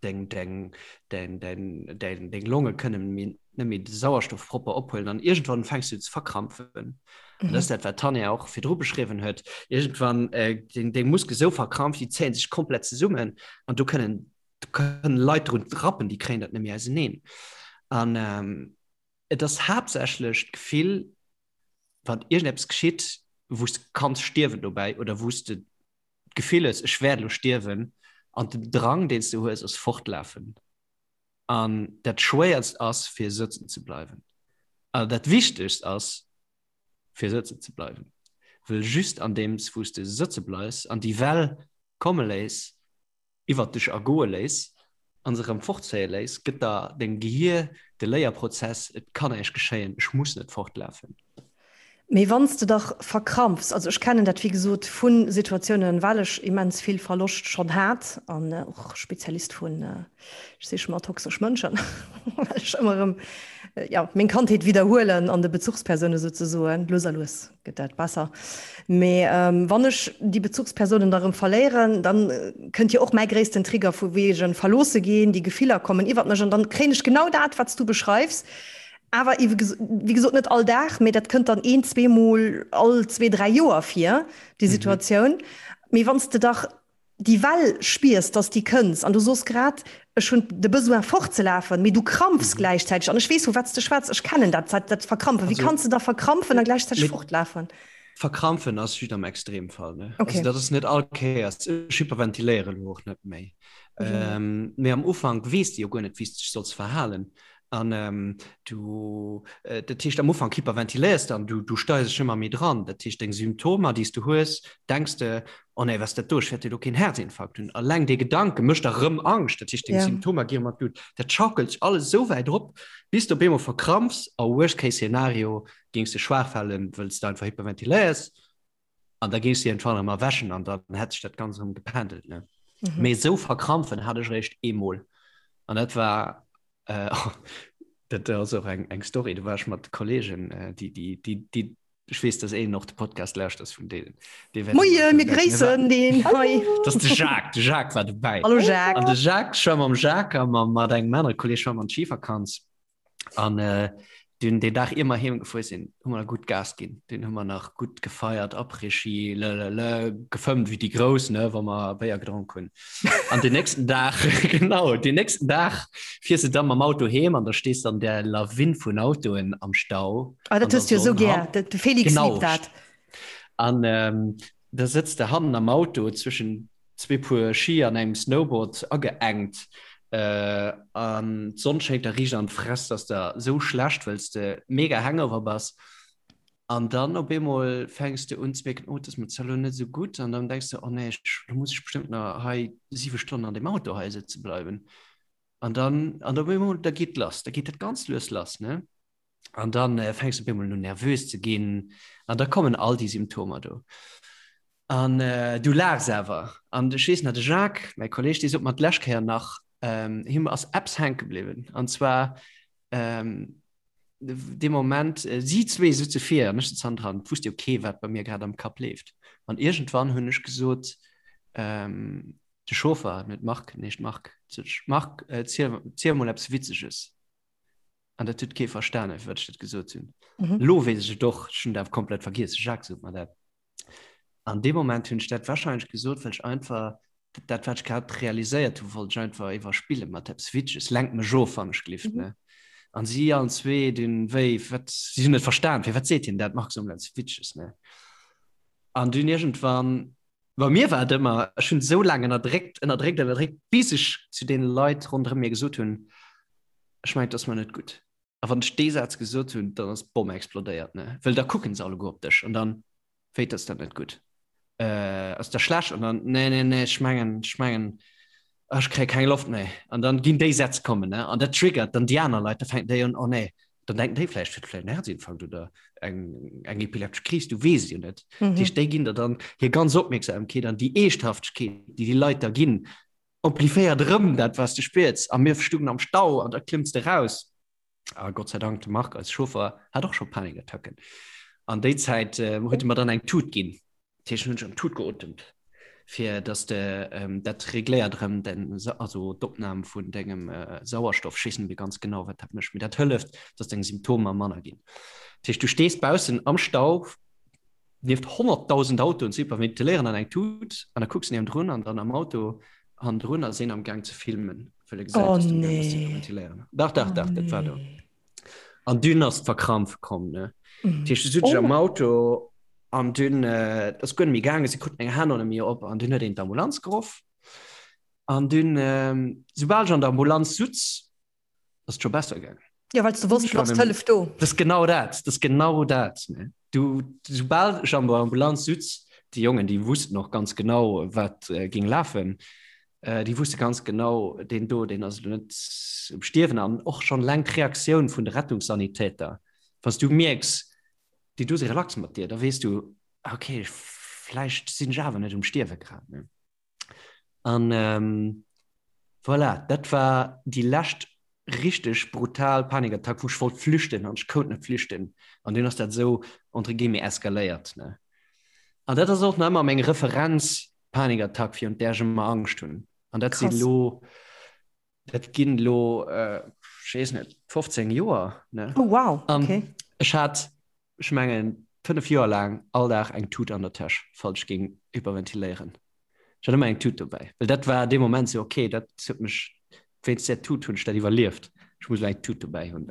deng, deng, deng, deng, deng, deng Longe kënnen méi, net méi de Sauerstoff propper ophuelen an iergendwann fänks du ze verkrampfen. Mhm. An dat ass dat, wat d'Tanja och virdru beschriwwen huet. Iergendwann äh, deng, deng Muskel sou verkrampft, déi zéien sech komplett zesummen an do kënnen, do kënnen Leit drun rappen, déi kréien dat net méi auseneen. An ähm, et ass haaptsächlech d'Gefill, wann iergendeppes geschitt, wou s de kanns stierwen dobäi oder wou s de d'Gefill hues, ech wäert elo stierwen, an den Drang, deen s du hues, ass fortlafen. An dat Schwéierst ass, fir sëtzen ze bleiwen. An dat Wichtegst ass, fir sëtzen ze bleiwen. Wëll just andeems wou s de sëtze bleifs an déi Well komme léiss, iwwert dech ergoe léiss an se erëm fortzéie léiss, gëtt der dengem Gehier de Léierprozess, et kann näischt geschéien, ech muss net fortlafen. Mee wann s de dach verkrampfs, also ech kennen dat wéi gesot vu Situatiounen, well ech immens vill Verloscht schonn hat an och Spezialist vun, ech siche mer toxesch Mënschen, well ech ëmmer erëm, jo, meng Kandheet widderhuelen an de Bezuchspersoune souzesoen, lues a lues. gëtt dat besser. Mee wann ech déi Bezuchspersonen da rëm verléieren, dann kënnt jo och mäi gréissten Trigger vu wegen verloosse ginn, déi Gefiller kommen iwwert mech an dann kréien ech genau dat, wat s du beschreifs, awer wéi gesot net all Dag, mee dat kënnt dann een, zweemol all zwee, dräi Joer vir, déi Situatioun. Mee wann s de dach déi Well spiers, dass déi kënns an du soos grad, ech hunn de Besoin fortzelafen, mee du krampfs gläichzäiteg an ech weess vu wat s de schwätz, ech kennen dat, dat Verkrampfen. Wéi kanns de da verkrampfen a gläichzäiteg fortlafen? Verkrampfen ass just am Extremfall, ne? Also dat ass net all Kéiers. Ech hyperventiléieren elo och net méi. Mee am Ufank weess de jo guer net, wéi s de dech solls verhalen. An du, dat heescht am Ufank hyperventiléiers de an du, du steiers dech ëmmer méi dran. Dat heescht deng Symptomer, déi s du hues, denks de, oh nee, wat ass dat do, ech wäert jo do keen Herzinfarkt hunn. Alleng dee Gedanke mécht der rëm Angscht, dat heescht deng Symptomer gi rëm an d'Lut. Dat schaukelt sech alles esou wäit op, bis de op eemol verkrampfs a worst case scenario géings de schwaach falen, wëll s de einfach hyperventiléiers. An da géings de iergendwann erëm erwächen an dann hätt sech dat Ganzt erëm gependelt, ne? Mhm. Mee esou verkrampfen hat ech eréischt eemol. An dat war, äh, dat ass och eng, eng Story, do war ech mat Kollegen, äh, déi, déi, déi, déi. Ech weess, dass een och de Podcast lauschters vun deenen. Dee wäert Moie, mir gréissen deen hei. Dat ass de Jacques, de Jacques war dobäi. Hallo Jacques. An de Jacques, ech war mam Jacques a mam, mat engem anere Kolleeg war mer an d'Schivakanz. An äh, dunn deen Dag ier mer heem gefuer sinn, hu mer gutt Gas ginn. Dunn hu mer nach gutt gefeiert, Après-Ski, lelele, gefëmmt wéi déi Grouss, ne, wa mer Béier gedronk hunn. An den nächsten Dag, genau, den nächsten Dag fiers de dann mam Auto heem an da stees de an där Lawin vun Autoen am Stau. Ah, dat hues du jo sou gär, de Felix liebt dat. An ähm, da sëtz de hannen am Auto zwëschen zwee Puer Ski an engem Snowboard ageengt äh, an d'Sonn schéngt der riicht an d'Fress, dass der sou schlecht, wëlls de mega hangover bass. An dann op eemol fänks de un ze mierken, oh, et ass mir zwar elo net esou gutt. An dann denks de, oh nee, ech, lo muss ech bestëmmt nach hei siwe Stonnen an deem Auto hei sëtze bleiwen. An dann, an op eemol, da geet lass, da geet dat ganz lues lass, ne? An dann äh, fänks du op eemol un nervös ze ginn. An da kommen all déi Symptomer do. An äh, du laachs awer. An ech weess nach, de Jacques, mäi Kolleg, dee sot mer d'lescht Kéier nach, ähm, him ass eppes hänke bliwwen. An zwar, ähm, dee Moment, äh, si zwee sutze vir an ech sutz hannendran, et wusst jo kee wat bei mir grad am Kapp leeft. An iergendwann hunn ech gesot, ähm, de Chauffer, net Marc, nee, Marc, sot ech, Marc, äh, ziel, ziel mol eppes Witzeges. An dat huet kee verstanen, firwat ech dat gesot hunn. Mhm. Lo weess ech et och, ech hunn et awer komplett vergiess, de Jacques sot mer dat. An deem Moment hunn ech dat wahrscheinlech gesot, well ech einfach dat, wat ech grad realiséiert hu, wollt ech einfach iwwerspille mat eppes Witzeges. Lenk mech of, wann ech glift, ne? An si allen zwee dunn, wéi, wat, si hunn net verstan, firwat seet hien dat, Marc, so mol eppes Witzeges, ne? An dunn iergendwann, bei mir war et ëmmer, ech hunn esou laang ënnerdréckt, ënnerdréckt, ënnerdréckt, bis ech zu deene Leit ronderëm mir gesot hunn, ech mengen, et ass mer net gutt. A wann ech dee Saz gesot hunn, dann ass d'Bomm explodéiert, ne? Well da kucken se alleguer op dech an dann, Wéi, ass dat net gutt? Äh, ass der schlecht? An dann, Nee, nee, nee, ech mengen, ech mengen, ech kréie keng Loft méi. An dann ginn déi Sätz kommen, ne? An dat triggert dann déi aner Leit, da fänken déi un, Oh nee, dann denken déi vläicht, huet vläicht en Herzinfarkt oder eng, eng epileptesch Kris, du weess et jo net. Mhm. Dat heescht, déi ginn der dann hir ganz Opmierksamkeet an déi Eeschthaftegkeet, déi déi Leit der ginn, Amplifiéiert erëm dat, wat s de spiers. A mir stungen am Stau an da klëmms de raus. A Gott sei Dank, de Marc, eise Chauffer, hat och scho Panikattacken. An déi Zäit huet e mer dann eng Tut ginn. Dat heescht, hunn ech an d'Tut geotemt, fir dass de dat regléiert erëm den, also d'Opnam vun dengem Sauerstoff. Ech weess net méi ganz genau, wat dat mécht, mee dat hëlleft, dass deng Symptomer manner ginn. Dat heescht, du stees baussen am Stau. Nieft 100.000 Autoen ze hyperventiléieren an eng Tut an da kucks niewendrun an dann am Auto hannendrun ass een am Gaang ze filmen, well e gesäit, Oh dass du am Gaang bass ze nee. hyperventiléieren. Dach, dach, Oh dach, dat war do. nee. An dunn ass d'Verkrampf komm, ne. Dat heescht, du sutz ech am Oh. Auto an dunn, äh, et ass guer net méi gaangen, si kruten eng Hänn ënner mir op an dunn huet een d'Ambulanz geruff. An dunn, ähm, soubal ech an der Ambulanz sutz, ass et scho besser gaangen. Ja, well s du wosst, du ass d'Hëllef do. Dat ass genau dat, dat ass genau dat. Ne? Du, soubal ech an der Ambulanz sutz, déi Jongen, déi wussten och ganz genau, wat äh, ging lafen. Äh, déi wusste ganz genau, deen do, deen ass elo net um Stierwen an och schon eleng d'Reaktioun vun de Rettungssanitäter. Wann s du mierks, déi do si relax mat dir, da weess du, okay, vläicht sinn ech awer net um Stierwe grad. Ne? An ähm, voilà, dat war déi lescht richteg brutal Panikattack, wou ech wollt flüchten an ech kout net flüchten. An dunn ass dat esou entre guillemets eskaléiert. Ne? An dat ass och nach ëmmer meng Referenz Panikattack, virun där ech ëmmer Angscht hunn. An dat si Krass. lo, dat ginn lo, äh, ech weess net, 15 Joer. Ne? Oh wow, An okay. ech hat, ech mengen, 5 Joer laang all Dag eng Tut an der Täsch, falls ech géing hyperventiléieren. Ech hat ëmmer eng Tut dobäi, well dat war dee Moment sou, okay, dat huet mech, wéinst där Tut hunn ech dat iwwerlieft, ech muss elo eng Tut dobäi hunn.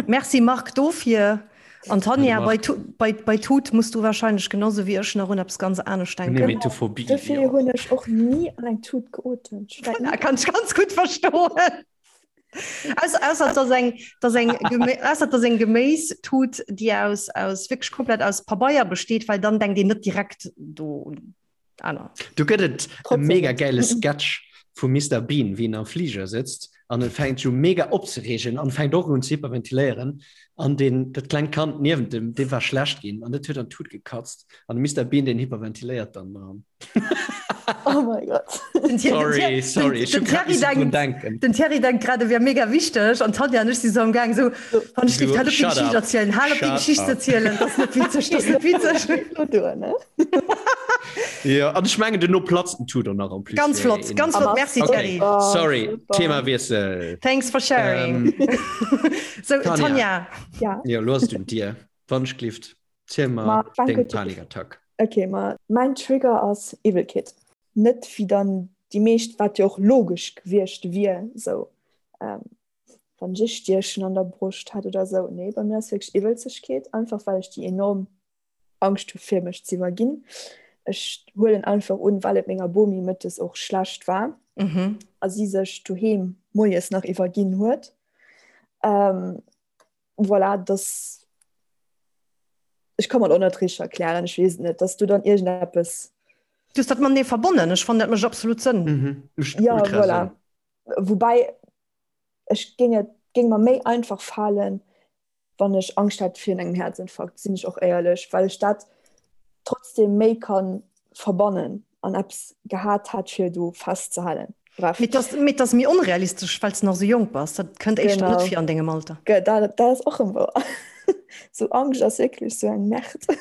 Merci Marc dofir. An Tanja, Marc. bei, Tu- bei, bei Tut muss du wahrscheinlech genauso wéi ech nach un eppes ganz anescht denken. Nemetophobie, Dofir jo. hunn ech och ni an eng Tut geotemt. Ech war Voilà, kann ech ganz gutt verstoen. Ausser, ausser dass eng, dass eng, Gemé ausser dass eng Geméistut, déi aus, aus wierklech komplett aus Pabeier besteet, well dann denkt een net direkt do un aner. Do gëtt et e Trotzdem mega net. gäile Sketch vum Mister Bean, wéi en am Fliger sëtzt. An en fänkt sech u mega opzereegen an fänkt och un ze hyperventiléieren. An deen, dat klengt Kand niewent em, deem war schlecht ginn an dat huet an d'Tut gekatzt. An de Mister Bean, deen hyperventiléiert dann dran. Oh mein Gott. Den Thierry, Sorry, sorry, ech hu den grad Thierry missen drun denkt, denken. den Thierry denkt grad, e wär mega wichteg an d'Tanja an ech si sou am Gaang sou, wann ech géif, hal op déi Shut Geschicht up, erzielen, hal op déi shut Geschicht ze up. erzielen, dat ass net witzeg, dat ass net witzeg. Lo duer, ne? Jo, an ech mengen duerno platzt den Tudor nach en plus. Ganz flott, ganz flott, merci Okay, Thierry. Oh, sorry, super. Themawiessel. Thanks for sharing. Ähm, Sou, Tanja. Tanja. Ja. Jo, lo ass et un dir. Wann ech glift, ziel Ma, mer danke deng dir. Panikattack. Okay, ma mäin Trigger ass Iwwelkeet. Net wéi dann déi meescht, wat jo och logesch gewiescht wier, sou ähm, wann ech e Stiechen an der Broscht hätt oder sou. Nee, bei mir ass wierklech Iwwelzegkeet, einfach well ech déi enorm Angscht hu fir mech ze iwwerginn. Ech huelen einfach un, well et menger Bomi mëttes och schlecht war Mhm. a si sech doheem moies nach iwwerginn huet. Ähm, voilà, dass ech ka mer et och net richteg erklären, ech weess et net, dass du dann iergendeppes. Du hues dat matenee verbonnen, ech fannen dat mécht absolut Sënn. Mhm, mécht Ja, ultra voilà. Sënn. Woubäi ech géing et géing mer méi einfach falen, wann ech Angscht hätt virun engem Häerzinfarkt, sinn ech och éierlech, well ech dat trotzdem méi ka verbannen an eppes gehat hätt fir do festzehalen. Bref. Mee et mee et ass méi onrealistesch, well s de nach esou jonk bass. Dat kënnt éischter net Genau. vir an dengem Alter. Ge dat dat ass och erëm wouer. Sou Angscht ass wierklech sou eng Merde.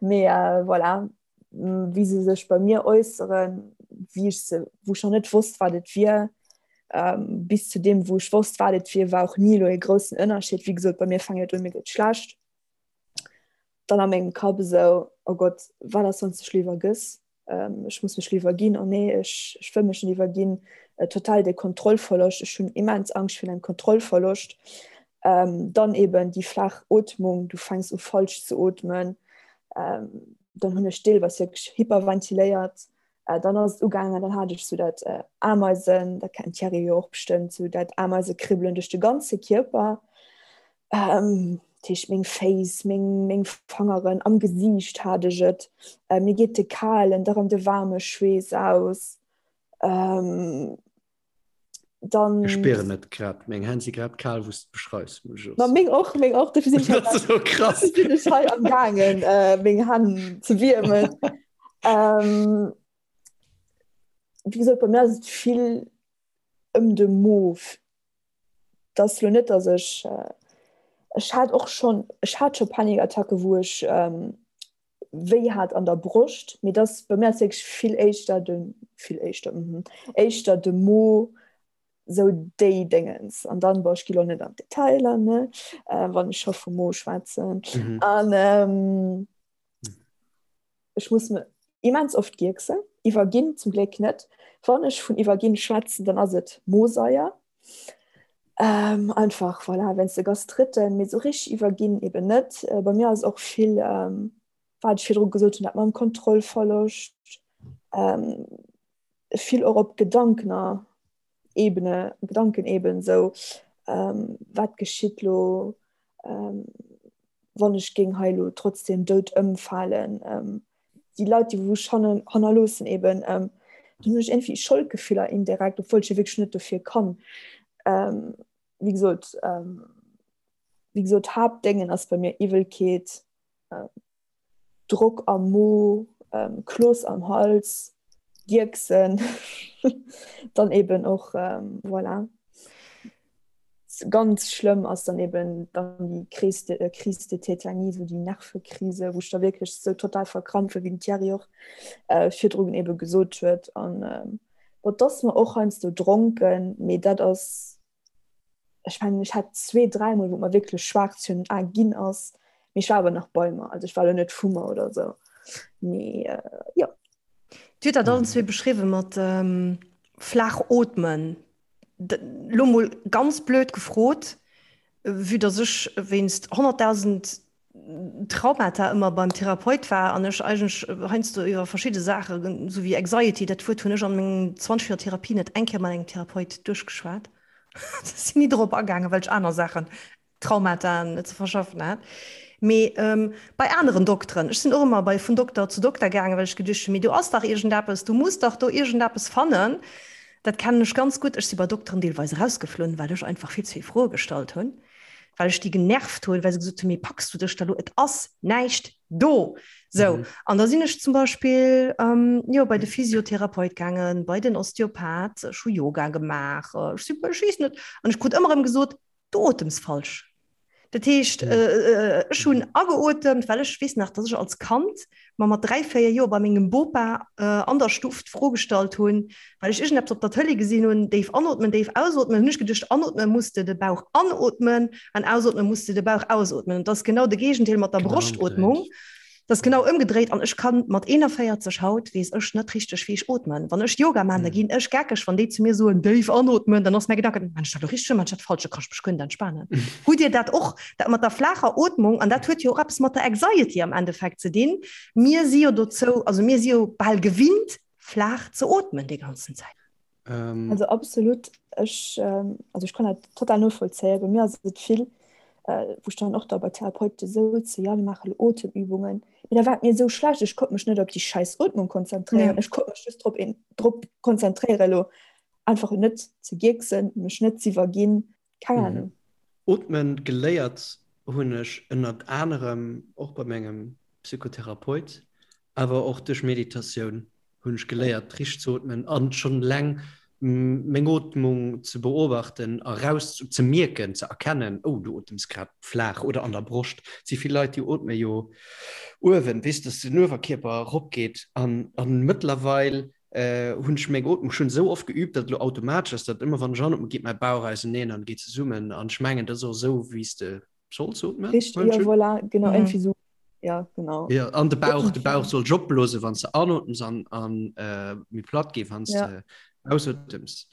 Mee voilà, wéi se sech bei mir äusseren, wéi ech se, wou ech nach net wosst, wat et wier, ähm, bis zu deem, wou ech wosst, wat et wier, war och ni elo e groussen Ënnerscheed. Wéi gesot, bei mir fänkt et un, mir gëtt schlecht. Dann a mengem Kapp esou, oh Gott, wat ass, wann s dech elo iwwergëss? Ähm, ech muss mech elo iwwerginn, oh nee, ech, ech wëll mech net iwwerginn. Äh, total de Kontrollverloscht, ech hunn immens Angscht virun engem Kontrollverloscht. Ähm, dann eben déi flaach Ootmung, du fänks u falsch ze ootmen. Ähm, dann hunn ech deelweis wierklech hyperventiléiert. Äh, dann ass et ugaangen, dann hat ech sou dat äh, Ameisen, dat kennt d'Thierry jo och bestëmmt, sou dat Ameisekribbelen duerch de ganze Kierper. Ähm, dat heescht meng Féiss, meng, meng Fangeren, am Gesiicht hat ech et. Äh, mir geet de kalen, da rëm de waarme Schweess aus. Ähm, dann Ech spieren et grad, meng Hänn si grad kal wou s de beschreifs, muss ech och Ma soen. meng och, meng och, dofir sinn ech hei Dat ass esou krass. dofir sinn ech hei am gaangen äh, meng Hänn ze wiermen. Ähm, wéi gesot, bei mir ass et vill ëm de Mo. Et ass lo net, datt ech, ech hat och schonn, ech hat scho Panikattacke wou ech wéi hat an der Broscht, mee dass bei mir ass wierklech vill éischter de, vill éischter, mhm, éischter de Mo, sou déi Déngens. An dann, bon, ech gi lo net an d'Detailer, ne, wann ech scho vum Mo schwätzen. Mhm. An ähm, ech muss me immens oft gierksen, iwwerginn zum Gléck net. Wann ech vun iwwerginn schwätzen, dann ass et Mosaier. Ähm, einfach, voilà, wéinst de Gastritten, mee sou richteg iwwerginn eben net. Äh, bei mir ass och vill, ähm, wat ech virdru gesot hunn, dat mam Kontrollverloscht, ähm, vill och op Gedankener Ebene, Gedankeneben, sou, ähm, wat geschitt lo, ähm, wann ech géing hei lo trotzdem dout ëmfalen, ähm, déi Leit, déi wou ech hannen, hannerloossen eben, ähm, dann hunn ech iergendwéi Scholdgefiller indirekt, obwuel ech jo wierklech net dofir kann. Ähm, wéi gesot, ähm, wéi gesot, Haaptdéngen ass bei mir Iwwelkeet, ähm, Drock am Mo, ähm, Kloss am Hals, Gierksen, dann eben och, ähm, voilà. Ganz schlëmm ass dann eben dann déi Crise de, äh, Crise de Tétanie, sou déi Nervekrise, wou ech da wierklech sou total verkrampfe, wéi den Thierry och äh, virdrun eben gesot huet. An ähm, bon, 't ass mer och heiansdo dronken, mee dat ass, ech mengen, ech hat zwee, dräimol, wou et mer wierklech schwaarz virun den Ae ginn ass, mee ech war awer nach bei mer, also ech war elo net vu mer oder sou, mee äh, jo. Dir hutt dat allen zwee beschriwwe mat ähm, flaach ootmen. Lo mol ganz blöd gefrot, vue dass ech wéinst 100.000 Traumata ëmmer beim Therapeut war an ech eigentlech heiansdo iwwer verschidde Saachen, esou wéi Anxiety, dat Wuert hunn ech an mengen 20 Joer Therapie net eng Kéier mat engem Therapeut duerchgeschwat. Ech sinn ni dorop agaangen, well ech aner Saachen, Traumataen ze verschaffen hat. Mee bei aneren Dokteren, ech sinn och ëmmer bei vun Dokter zu Dokter gaangen, well ech geduecht hunn, mee do ass dach iergendeppes, du muss dach do iergendeppes fannen. Dat kennen ech ganz gutt. Ech si bei Dokteren deelweis erausgeflunn, well ech einfach vill ze vill Froe gestallt hunn, well ech déi genervt hunn, well se gesot hunn, mee packs du dech da lo, et ass näischt do. Sou, an da sinn ech zum Beispill, jo, bei de Physiotherapeut gaangen, bei den Osteopath, ech hu Yoga gemaach, ech si, ech weess net, an ech krut ëmmer erëm gesot, Du otems falsch. Dat heescht, ech hunn ageotemt, well ech weess nach, dass ech als Kand mer mat 3, 4 Joer bei mengem Bopa an der Stuff d'Fro gestallt hunn, well ech iergendeppes op der Tëlee gesinn hunn, déif anootmen, déif ausootmen, hunn ech geduecht, anootme muss de de Bauch anootmen an ausootme muss de de Bauch ausootmen. An dat ass genau de Géigendeel mat der Broschtotmung. Dat ass genau ëmgedréit an ech kann mat 41 haut weess ech net richteg wéi ech ootmen. Wann ech Yoga maan, da ginn ech geckeg, wann déi zu mir soen déif anootmen, dann ass mäi Gedanken, maan ech dat elo richteg, maan ech dat falsch, da kann ech mech guer net entspanen. Hutt Dir dat och, dat mat der flaacher Ootmung? An dat huet jo och eppes mat der Anxiety am Endeffekt ze dinn. Mir si jo dozou, also mir si jo bal gewinnt flaach ze ootmen déi ganzen Zäit. Also absolut, ech, also ech kann dat total novollzéien. Bei mir ass et vill, wou ech dann och da bei Therapeute souze, jo mir maache lo Otemübungen, mee da war et mir esou schlecht, ech konnt mech net op déi schäiss Ootmung konzentréieren, ech konnt mech just drop drop konzentréieren elo einfach net ze gierksen, mech net z'iwwerginn, keng Ahnung. Ootmen geléiert hunn ech ënnert anerem och bei mengem Psychotherapeut, awer och duerch Meditatioun. hunn ech geléiert richteg ze ootmen an schonn eleng meng Ootmung ze beobachten a raus ze mierken, ze erkennen, oh du otems grad flaach oder an der Broscht. Et si vill Leit déi ootme jo uewen, weess dass den Uewerkierper erop geet an an mëttlerweil hunn ech meng Ootmung schonn esou oft geüübt, datt et elo automatesch ass, datt ëmmer wann ech anootme geet mäi Bauch auseneen an geet zesummen an ech mengen dat ass och esou wéi s de solls ootmen. Richteg, jo voilà, genau, iergendwéi esou. Ja, genau. Ja, an de Bauch, de Bauch soll opblose wann se anotems an, an äh, méi platt gi wann ja. de ausotems.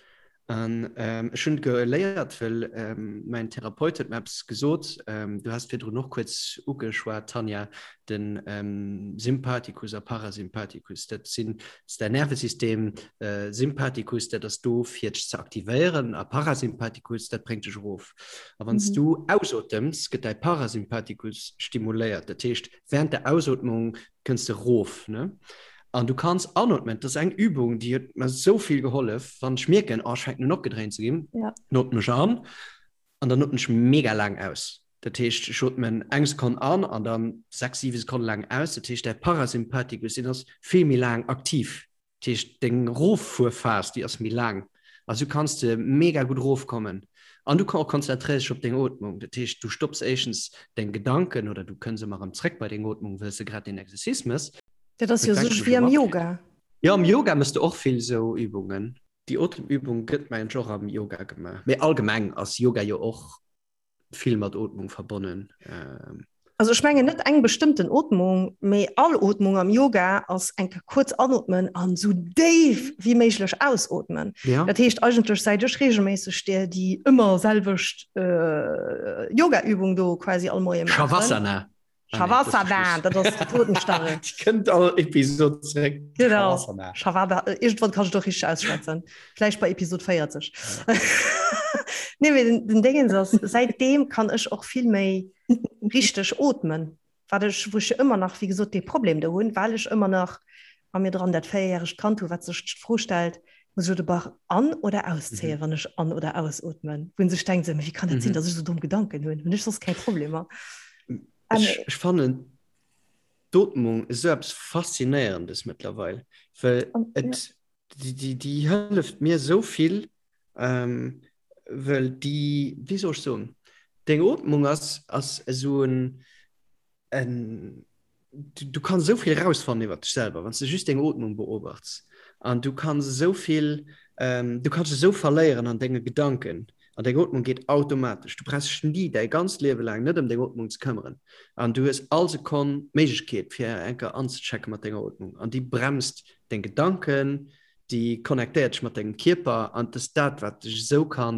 An ähm, ech hunn geléiert, well ähm, mein Therapeut huet mir eppes gesot, ähm, du hast virdrun och kuerz ugeschwat, Tanja, den ähm, Sympathikus a Parasympathikus, dat sinn ass däin Nervesystem, äh, Sympathikus, dat ass do fir dech ze aktivéieren, a Parasympathikus, dat bréngt dech erof. A wann s du ausotems, gëtt däi Parasympathikus stimuléiert. Dat heescht, während der Ausotmung kënns de rof, ne? An du kanns anotmen. Dat ass eng Übung, déi huet mer esou vill gehollef, wann ech mierken, oh, ech fänken un opgedréint ze ginn, Ja. dann otmen ech an an dann otmen ech mega laang aus. Dat heescht, ech otmen eng Sekonn an an dann 6, 7 Sekonne laang aus. Dat heescht, däi Parasympathikus, deen ass vill méi laang aktiv. Dat heescht, deng Roffuerphas, déi ass méi laang. A sou kanns de mega gutt erofkommen. An du konzentréiers dech op deng Ootmung. Dat heescht, du stopps éischtens deng Gedanken oder du kënns ëmmer erëm zréck bei deng Ootmung, wëll s de grad deen Exercice mëss. Dat ass jo sech wéi am Yoga. Jo, am Yoga mëss de och vill sou Übungen. Déi Otemübung gëtt mengen ech och am Yoga gemaach. Mee allgemeng ass Yoga jo och vill mat Ootmung verbonnen. Also ech mengen net eng bestëmmten Ootmung, mee all Ootmung am Yoga ass eng Kéier kuerz anootmen an esou déif wéi méiglech ausootmen. Ja. Dat heescht eigentlech säit ech regelméisseg där déi ëmmer selwecht Yogaübung do quasi all Moie maachen. Shavasana. Shavasana, dat ass die Totenstarre. Die kënnt all Episode zréck. Genau. Shavasana. Shavada, äh, irgendwann kann ich doch richtig ausschwätzen. Vielleicht bei Episode 40. Ja. nee, mee den, den Dingens ass, seitdem kann ech och vill méi richtig atmen. Wat ech, wou ech ëmmer nach, wéi gesot, dee Problem do hunn, well ech ëmmer nach a mir dran dat véierjäregt Kand hu, wat sech d'Fro stellt, muss ech de Bauch an oder auszéien, mhm. wann ech an oder ausatmen? Wou sech denkt, wéi kann dat mhm. sinn, dass ech so domm Gedanken hunn? Hunn ech soss keng Problemer? Ech, ech fannen d'Ootmung esou eppes Faszinéierendes mëttlerweil, well et, déi, déi, déi hëlleft mir esou vill, ähm, well déi, wéi soll ech soen, deng Ootmung ass, ass esou en, en, du, du kanns esou vill erausfannen iwwer dech selwer, wann s de just deng Ootmung beobachts. An du kanns esou vill, ähm, du kanns dech esou verléieren an denge Gedanken. An deng Ootmung geet automatesch. Du brauchs dech ni däi ganzt Liewe laang net ëm deng Ootmung ze këmmeren. An du hues all Sekonn d'Méiglechkeet, fir eng Kéier anzechecke mat denger Ootmung. An déi bremst deng Gedanken, déi connectéiert dech mat dengem Kierper. An et ass dat, wat dech esou ka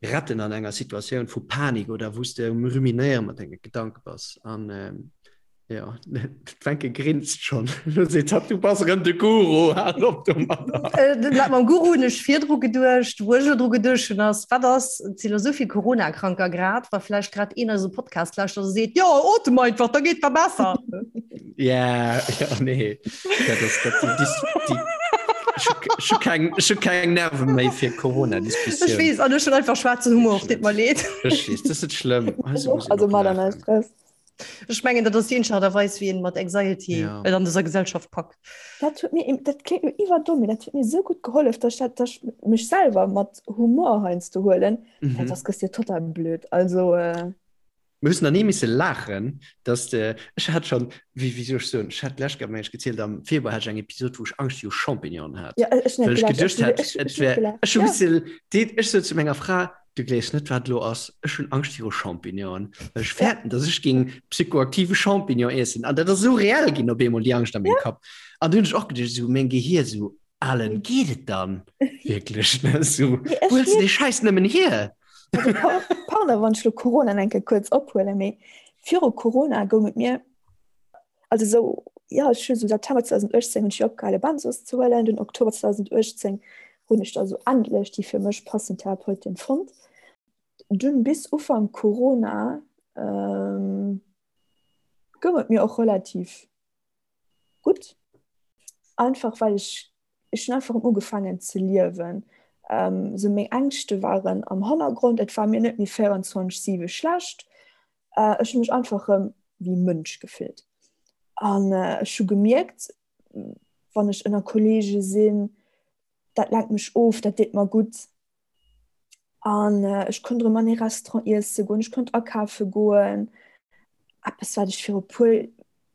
retten an enger Situatioun vu Panik oder wou s de um Ruminéiere mat denge Gedanke bass. An Jo, d'Wencke grinst schonn. Lo seet hatt, du bass erëm de Guru, hal op domadder. Dat mam Guru hunn ech virdru geduecht. Wou ech elo dru geduecht hunn ass, wat ass, et sinn elo esou vill Corona-Kranker grad, wa vläicht grad een eise Podcast lauschtert a seet, jo, otem einfach, da geet der besser. Ja, ja, nee. Dat ass, dat, déi, déi, déi. Ech hu keng, ech hu keng Nerve méi fir Corona-Diskussioun. Ech weess, an ech hunn einfach schwaarzen Humor, deet mer leed. Ech weess, dat ass net schlëmm. Also mat an Stress. Ech mengen, dat ass déi eenzeg Aart a Weis, wéi een mat Anxiety Ja. et an dëser Gesellschaft packt. Dat huet mir, dat kléngt lo iwwerdomm, mee dat huet mir esou gutt gehollef, dass ech dat, dass ech mech selwer mat Humor heiansdo huelen, well Mhm. soss gëss de jo total blöd. Also. Mir hussen nach ni misse laachen, dass de, ech hat schon, wéi, wéi soll ech soen, ech hat d'lescht Kéier, meng ech, gezielt, am Februar hat ech eng Episod, wou ech Angscht viru Champignonen hat, Ja, ech well net ech gelacht, geduecht ech, hat, ech, et ech net wär, gelacht, ech hu ja. misse, deet, ech sot zu menger Fra, du gleefs net, wat elo ass, ech hunn Angscht viru Champignonen, well ech Ja. fäerten, dass ech géing psychoaktive Champignon iessen. An dat ass esou reell ginn op eemol, déi Angscht a mengem Ja. Kapp. An du hunn ech och geduecht, esou meng Gehier esou, Alen, geet et dann wierklech? Ne, esou, Nee, ech wou huels de mierk dee Schäiss nëmmen hier? Also, pardon, wann ech lo Corona eng Kéier kuerz ophuelen, mee viru Corona goung et mir, also esou, jo, ech hu sou September 2018 hunn ech jo opgehale Benzos ze huelen, dunn Oktober 2018 hunn ech da sou endlech déi fir mech passend Therapeutin fonnt. Dunn bis Ufank Corona goung et mir och relativ gutt, einfach well ech ech hunn einfach erëm ugefaangen ze liewen. Sou meng Ängschte waren am Hannergrond, et war mir net méi 24, 7 schlecht. Ech hunn mech einfach erëm wéi Mënsch gefillt. An ech hu gemierkt, wann ech ënner Kolleege sinn, dat lenkt mech of, dat deet mer gutt. An ech konnt erëm an ee Restaurant iesse goen, ech konnt akafe goen. Eppes, wat ech viru puer,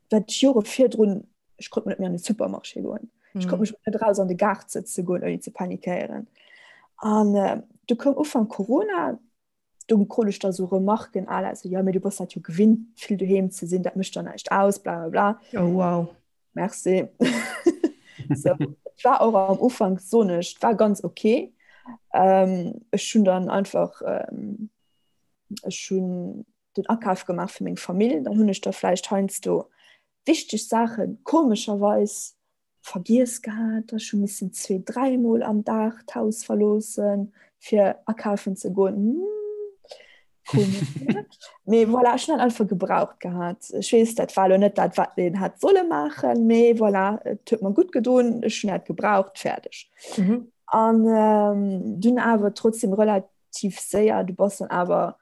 wat ech Jore virdrun, ech konnt net méi an de Supermarché goen. Ech konnt mech net eraus an de Gaart sëtze goen, ouni ze panikéieren. An du koum Ufank Corona, do krut ech da sou Remarken à la sou, jo, mee du bass dat jo gewinnt, vill doheem ze sinn, dat mécht der näischt aus, bla bla bla. Oh wow. Merci. So, et war och am Ufank, soen ech, et war ganz ok. Ähm, ech hunn dann einfach, ähm, ech hunn den Akaf gemaach fir meng Famill, dann hunn ech da vläicht heiansdo wichteg Saachen komescherweis vergiess gehat, ech hu missen zwee, dräimol am Dag d'Haus verloossen, fir akafen ze goen. Hm, komesch, ne? Mee voilà, ech hunn dat einfach gebraucht gehat. Ech weess, dat war elo net dat, wat een hätt solle maachen, mee voilà, et huet mer gutt gedoen, ech hunn dat gebraucht, fäerdeg. Mhm. An ähm, dunn awer trotzdem relativ séier, du bass dann awer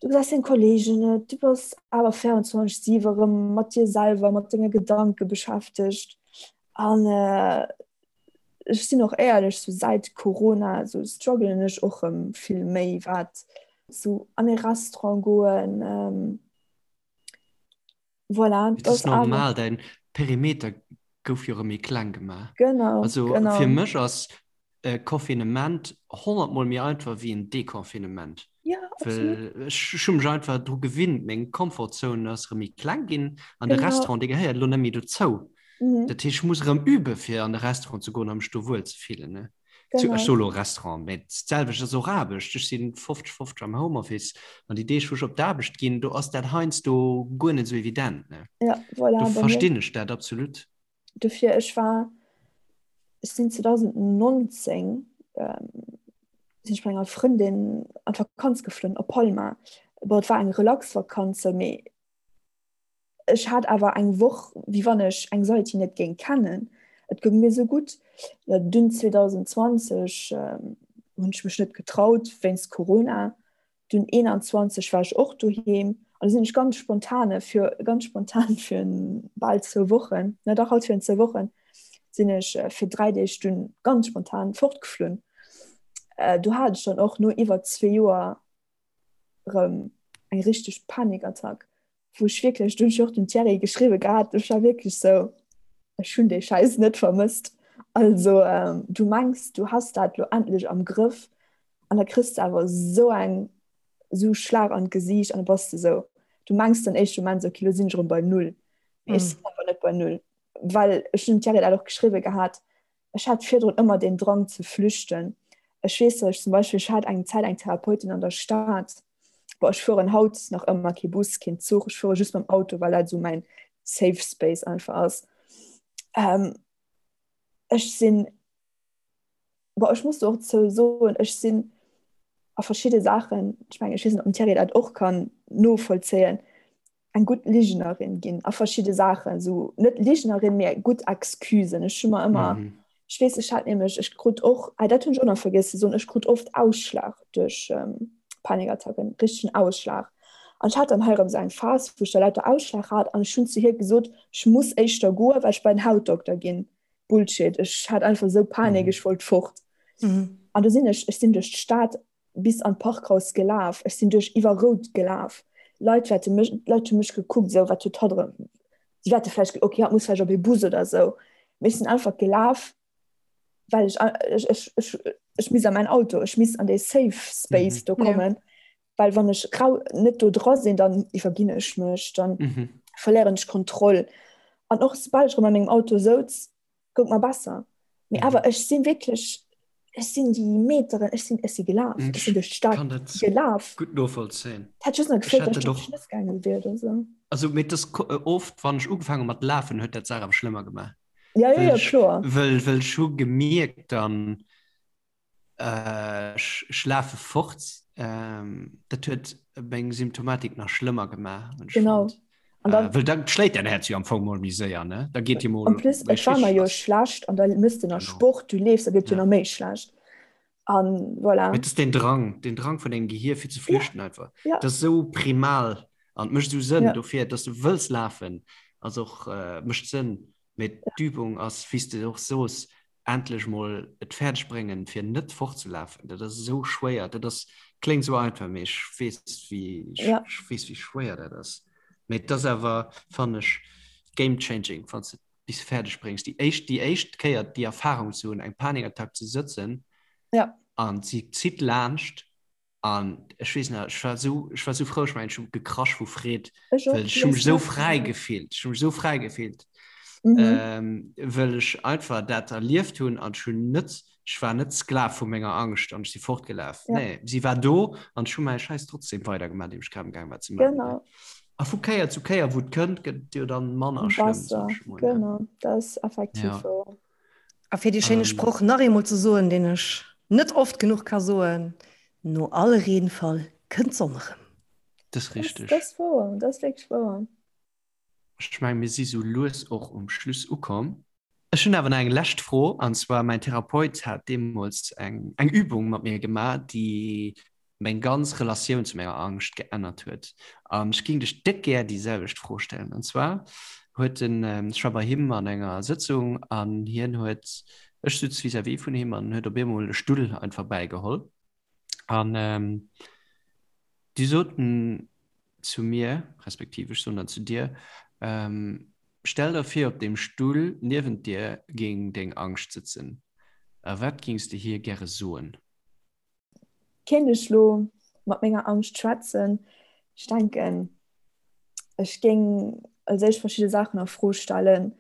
Du gesäis deng Kolleegen net, du bass awer 24 7 erëm mat dir selwer, mat denge Gedanke beschäftegt. An ech sinn och éierlech, sou säit Corona sou struggelen ech och erëm vill méi, wat sou an ee Restaurant goen, voilà. Et ass normal, däin Perimeter gouf jo erëm méi kleng gemaach. Genau, also genau. Fir mech ass e Confinement 100 mol méi einfach wéi en Deconfinement. Ja, absolut. Well ech hu mech einfach dru gewinnt, meng Komfortzone ass erëm méi kleng ginn an de Genau. Restaurant, dee gehéiert elo net méi dozou. Mhm. Dat heescht, ech muss erëm übe fir an de Restaurant ze goen a mech do wuel ze fillen, ne? Zu, ech Genau. soe lo Restaurant, mä d'selwecht ass och Aarbecht. Ech si 50, 50 am Homeoffice an déi Deeg, wou ech op d'Aarbecht ginn, do ass dat heiansdo guer net esou evident, ne? Ja, voilà, Do bei mir. verstinn ech dat absolut. Dofir, ech war, ech sinn 2019 ähm, sinn ech mat enger Frëndin an d'Vakanz geflunn op Palma. Bon, et war eng Relaxvakanz, mee ech hat awer eng Woch, wéi wann ech Anxiety net géing kennen. Et goung mir sou gutt. Jo, dunn 2020 ähm, hunn ech mech net getraut wéinst Corona. Dunn 21 war ech och doheem an du sinn ech ganz spontane fir ganz spontan fir bal zwou Wochen, na dach haut fir zwou Wochen sinn ech äh, fir dräi Deeg dunn ganz spontan fortgeflunn. Äh, du hat ech dann och no iwwer zwee Joer rëm eng richteg Panikattack, wou ech wierklech, du hunn ech och dem Thierry geschriwwe gehat, ech war wierklech sou, ech hunn dee Schäiss net vermësst. Also ähm, du mengs, du has dat lo endlech am Grëff an da kriss de awer sou eng sou Schlag an d'Gesiicht an da bass de sou, du mengs den éischte Moment sou, okay, lo sinn ech erëm bei Null. Mee ech sinn awer net bei Null, well ech hunn dem Thierry dat och geschriwwe gehat, Ech hat virdrun ëmmer den Drang ze flüchten. Ech weess, datt ech zum Beispill, ech hat eng Zäit eng Therapeutin an der Stad, bon, ech fueren haut nach ëmmer kee Bus, keen Zuch, ech fuere just mam Auto, well dat esou mäin safe space einfach ass. Ech sinn, bon, ech muss do och zou soen, ech sinn a verschidde Saachen, ech mengen, ech weess net, ob den Thierry dat och kann novollzéien, eng gutt Ligenerin ginn a verschidde Saachen, esou net Ligenerin, mee gutt Excusen. Ech hu mer ëmmer mm. Ech weess, ech hat nämlech, ech krut och, ah dat hunn ech och nach vergiess ze soen, ech krut oft Ausschlag duerch Panikattacken, richtegen Ausschlag. An ech hat dann hei erëm esou eng Phas, wou ech da lauter Ausschlag hat an ech hunn zu hir gesot, ech muss éischter goen, well ech bei den Hautdokter ginn. Bullshit, ech hat einfach esou Panik, ech wollt fort. An du sinn ech, ech sinn duerch d'Stad bis an d'Parkhaus gelaf, ech sinn duerch iwwer Rout gelaf, Leit wäerte mech, d'Leit hu mech gekuckt, esou wat huet hatt erëm, si wäerte vläicht, okay, hatt muss vläicht op ee Bus oder esou, mee ech sinn einfach gelaf, well ech, ech, ech, ech, ech misst a mäin Auto, ech misst an dee safe space do kommen, well wann ech rau net do dra sinn, dann iwwerginn ech mech, dann verléieren ech d'Kontroll. An och soubal ech erëm a mengem Auto souz, goung mer besser. Mee awer ech sinn wierklech, ech sinn déi Meteren, ech sinn, ech si gelaf, ech sinn duerch d'Stad Kann dat gelaf. gutt novollzéien. Et hätt just nach gefeelt, datt ech op d'Schnëss gaange wier oder sou. Also mee et ass oft, wann ech ugefaangen hu mat lafen, huet dat d'Saach awer schlëmmer gemaach. Ja, ja, ja, kloer. Wëll, wëll ech hu gemierkt dann, Ech lafe fort. Dat huet meng Symptomatik nach schlëmmer gemaach. Genau. An dann, Wëll dann schléit däin Häerz jo am Fong mol méi séier, ne? Da geet dir mol En plus, et war mer jo schlecht an da mëss de nach Sport, du leefs, da gëtt jo nach méi schlecht. An voilà. Mee et ass deen Drang, deen Drang vun dengem Gehier fir ze flüchten einfach. Ja. Dat ass esou primal an et mécht esou Sënn dofir, dass du wëlls lafen, ass och, mécht Sënn. Mee d'Übung ass, wéi s de och sos, endlech mol et fäerdeg bréngen fir net fortzelafen, dat ass esou schwéier, dat ass kléngt esou einfach, mee ech weess wéi ja. ech weess wéi schwéier dat ass. Mee et ass awer fannen ech game changing wann s de bis fäerdeg bréngs déi éischt déi éischt Kéier déi Erfahrung ze hunn eng Panikattack ze sëtzen ja. an si zitt laanscht An ech weess nach, ech war esou, ech war esou frou, ech mengen, ech hu gekrasch vu Freed, Ech och, well ech hu mech esou fräi gefillt, ech hu mech esou fräi gefillt, Mhm. ähm, well ech einfach dat erlieft hunn an ech hunn net, ech war net Sklav vu menger Angscht an ech si fortgelaf. Ja. Nee, si war do an ech hu mäi Schäiss trotzdem weidergemaach, deen ech grad am gaang war ze maachen. Genau. A vu Kéier zu Kéier, wou et kënnt, gëtt et jo dann manner schlëmm, Besser, sot ech mol, ne? genau, dat ass effektiv Ja. wouer. A fir dee schéine Sproch nach eemol ze soen, deen ech net oft genuch ka soen, No all Reenfall kënnt d'Sonn erëm. Dat ass richteg. Dat ass wouer, dat ass wierklech wouer. Ech mengen, mir si sou lues och um Schluss ukomm. Ech hunn awer nach eng lescht Fro, an zwar, mäin Therapeut hat deemools eng Übung mat mir gemaach, déi meng ganz Relatioun zu menger Angscht geännert huet. An ech géing dech déck gär déi selwecht Fro stellen. An zwar huet en, ech war bei him an enger Sëtzung an hien huet, ech sutz vis-à-vis vun him an en huet op eemol e Stull einfach bäigeholl an du sot en zu mir, respektiv ech soen dann zu dir, Stell der vir op deem Stull niewent dir géing deng Angscht sëtzen. A wat géings de hir gäre soen? Kéint ech lo mat menger Angscht schwätzen? Ech denken, ech géing als éischt verschidde Saachen a Fro stellen.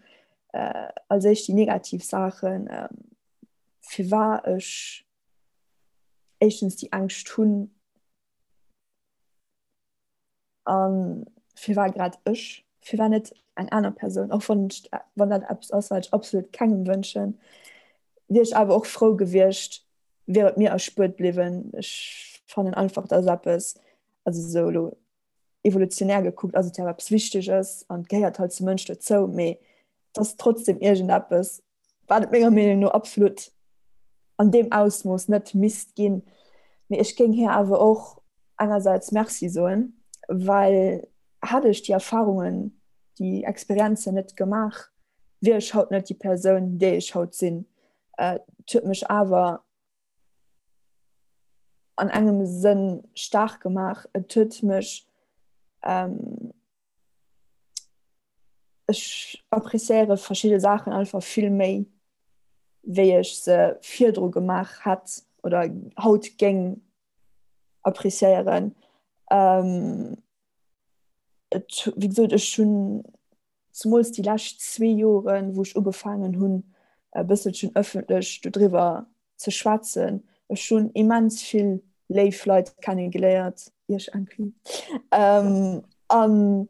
Als éischt déi negativ Saachen, firwat ech éischtens déi Ängscht hunn. A firwat grad ech? Firwat net eng aner Persoun? Och wann ech, wann dat eppes ass, wat ech absolut kengem wënschen, wier ech awer och frou gewiescht, wier et mir erspuert bliwwen. Ech fannen einfach, dat ass eppes, also esou elo evolutionär gekuckt ass et jo awer eppes Wichteges an et gehéiert halt zum Mënsch dozou, mee et ass trotzdem iergendeppes, wat et menger Meenung no absolut an deem Ausmooss net misst ginn. Mee ech géing hir awer och engersäits Merci soen, well hätt ech déi Erfarungen, déi Experienzen net gemaach, wier ech haut net déi Persoun, déi ech haut sinn. Et huet mech awer an engem Sënn staark gemaach. Et huet mech Ech appréciéiere verschidde Saachen einfach vill méi, wéi ech se virdru gemaach hätt oder haut géing appréciéieren. Et, wéi gesot, ech hunn zemools déi lescht zwee Joren, wou ech ugefaangen hunn, e bësselchen ëffentlech dodriwwer ze schwätzen. Ech hunn immens vill léif Leit kennegeléiert, iech inclus. An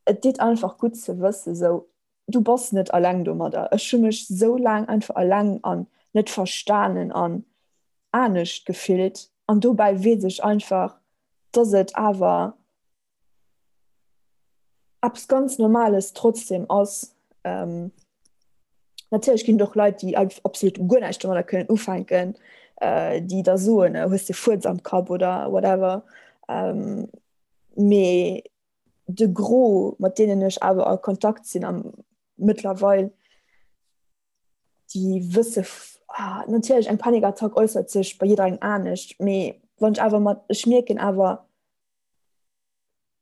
et deet einfach gutt ze wëssen, sou, du bass net alleng domadder. Ech hu mech sou laang einfach alleng an net verstanen an anescht gefillt. An dobäi weess ech einfach, dass et awer eppes ganz Normales trotzdem ass. Natierlech ginn et och Leit, déi absolut guer näischt domadder kënnen ufänken, déi da soen, hues de Fuerz am Kapp oder whatever. Mee de Gros, mat deenen ech awer a Kontakt sinn am mëttlerweil, déi wësse natierlech, eng Panikattack äussert sech bei jidderengem anescht, mee wann ech awer mat, ech mierken awer,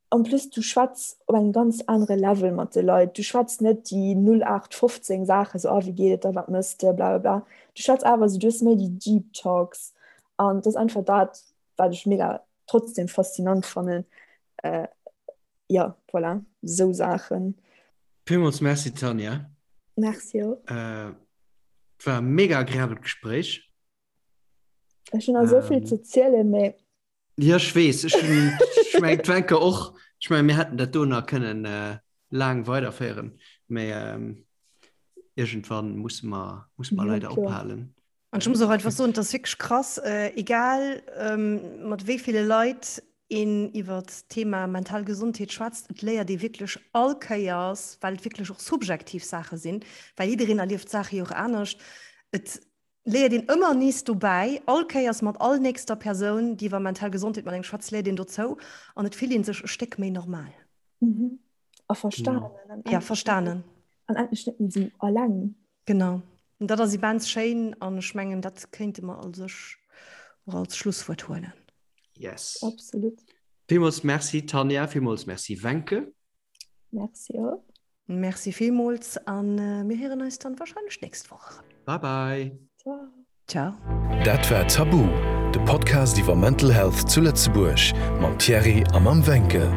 En plus du schwätz op engem ganz anere Level mat de Leit. Du schwätz net déi 0815 Saachen, sou, ah wéi geet et der, wat mëss de, blablabla. Du schwätz awer sou, du hues méi déi deep Talks an dat ass einfach dat, wat ech mega trotzdem faszinant fannen. Jo, voilà, sou Saachen. Villmools Merci Tanja. Merci och. Et war e mega agreabelt Gespréich. Ech hunn nach esou vill ze zielen, mee. Jo, ech weess. Ech hunn, ech mengen d'Wencke och. Ech mengen, mir hätten dat do nach kënnen laang weiderféieren, mä iergendwann musse mer, musse mer leider ophalen. An ech muss och einfach soen, et ass wierklech krass, egal mat wéi ville Leit een iwwer d'Thema mental Gesondheet schwätzt, et léiert ee wierklech all Kéiers, well et wierklech och subjektiv Saache sinn, well jiddereen erlieft d'Saache jo och anescht, et léiert een ëmmer nees dobäi, all Kéiers mat all nächster Persoun, déi iwwer mental Gesondheet mat engem schwätzt, léiert een dozou an et fillt ee sech e Stéck méi normal. Mhm. A verstanen. Genau. Ja, verstanen. An endlech net méi esou alleng. Genau. An dat ass immens schéin an ech mengen, dat kéinte mer a sech och als Schlusswuert huelen. Yes. Absolut. Villmools Merci Tanja, villmools Merci Wencke. Merci och. Merci villmools an mir héieren eis dann wahrscheinlech d'nächst Woch erëm. Bye bye. Ciao. Ciao. Dat war Tabu, de Podcast iwwer Mental Health zu Lëtzebuerg mam Thierry a mam Wencke.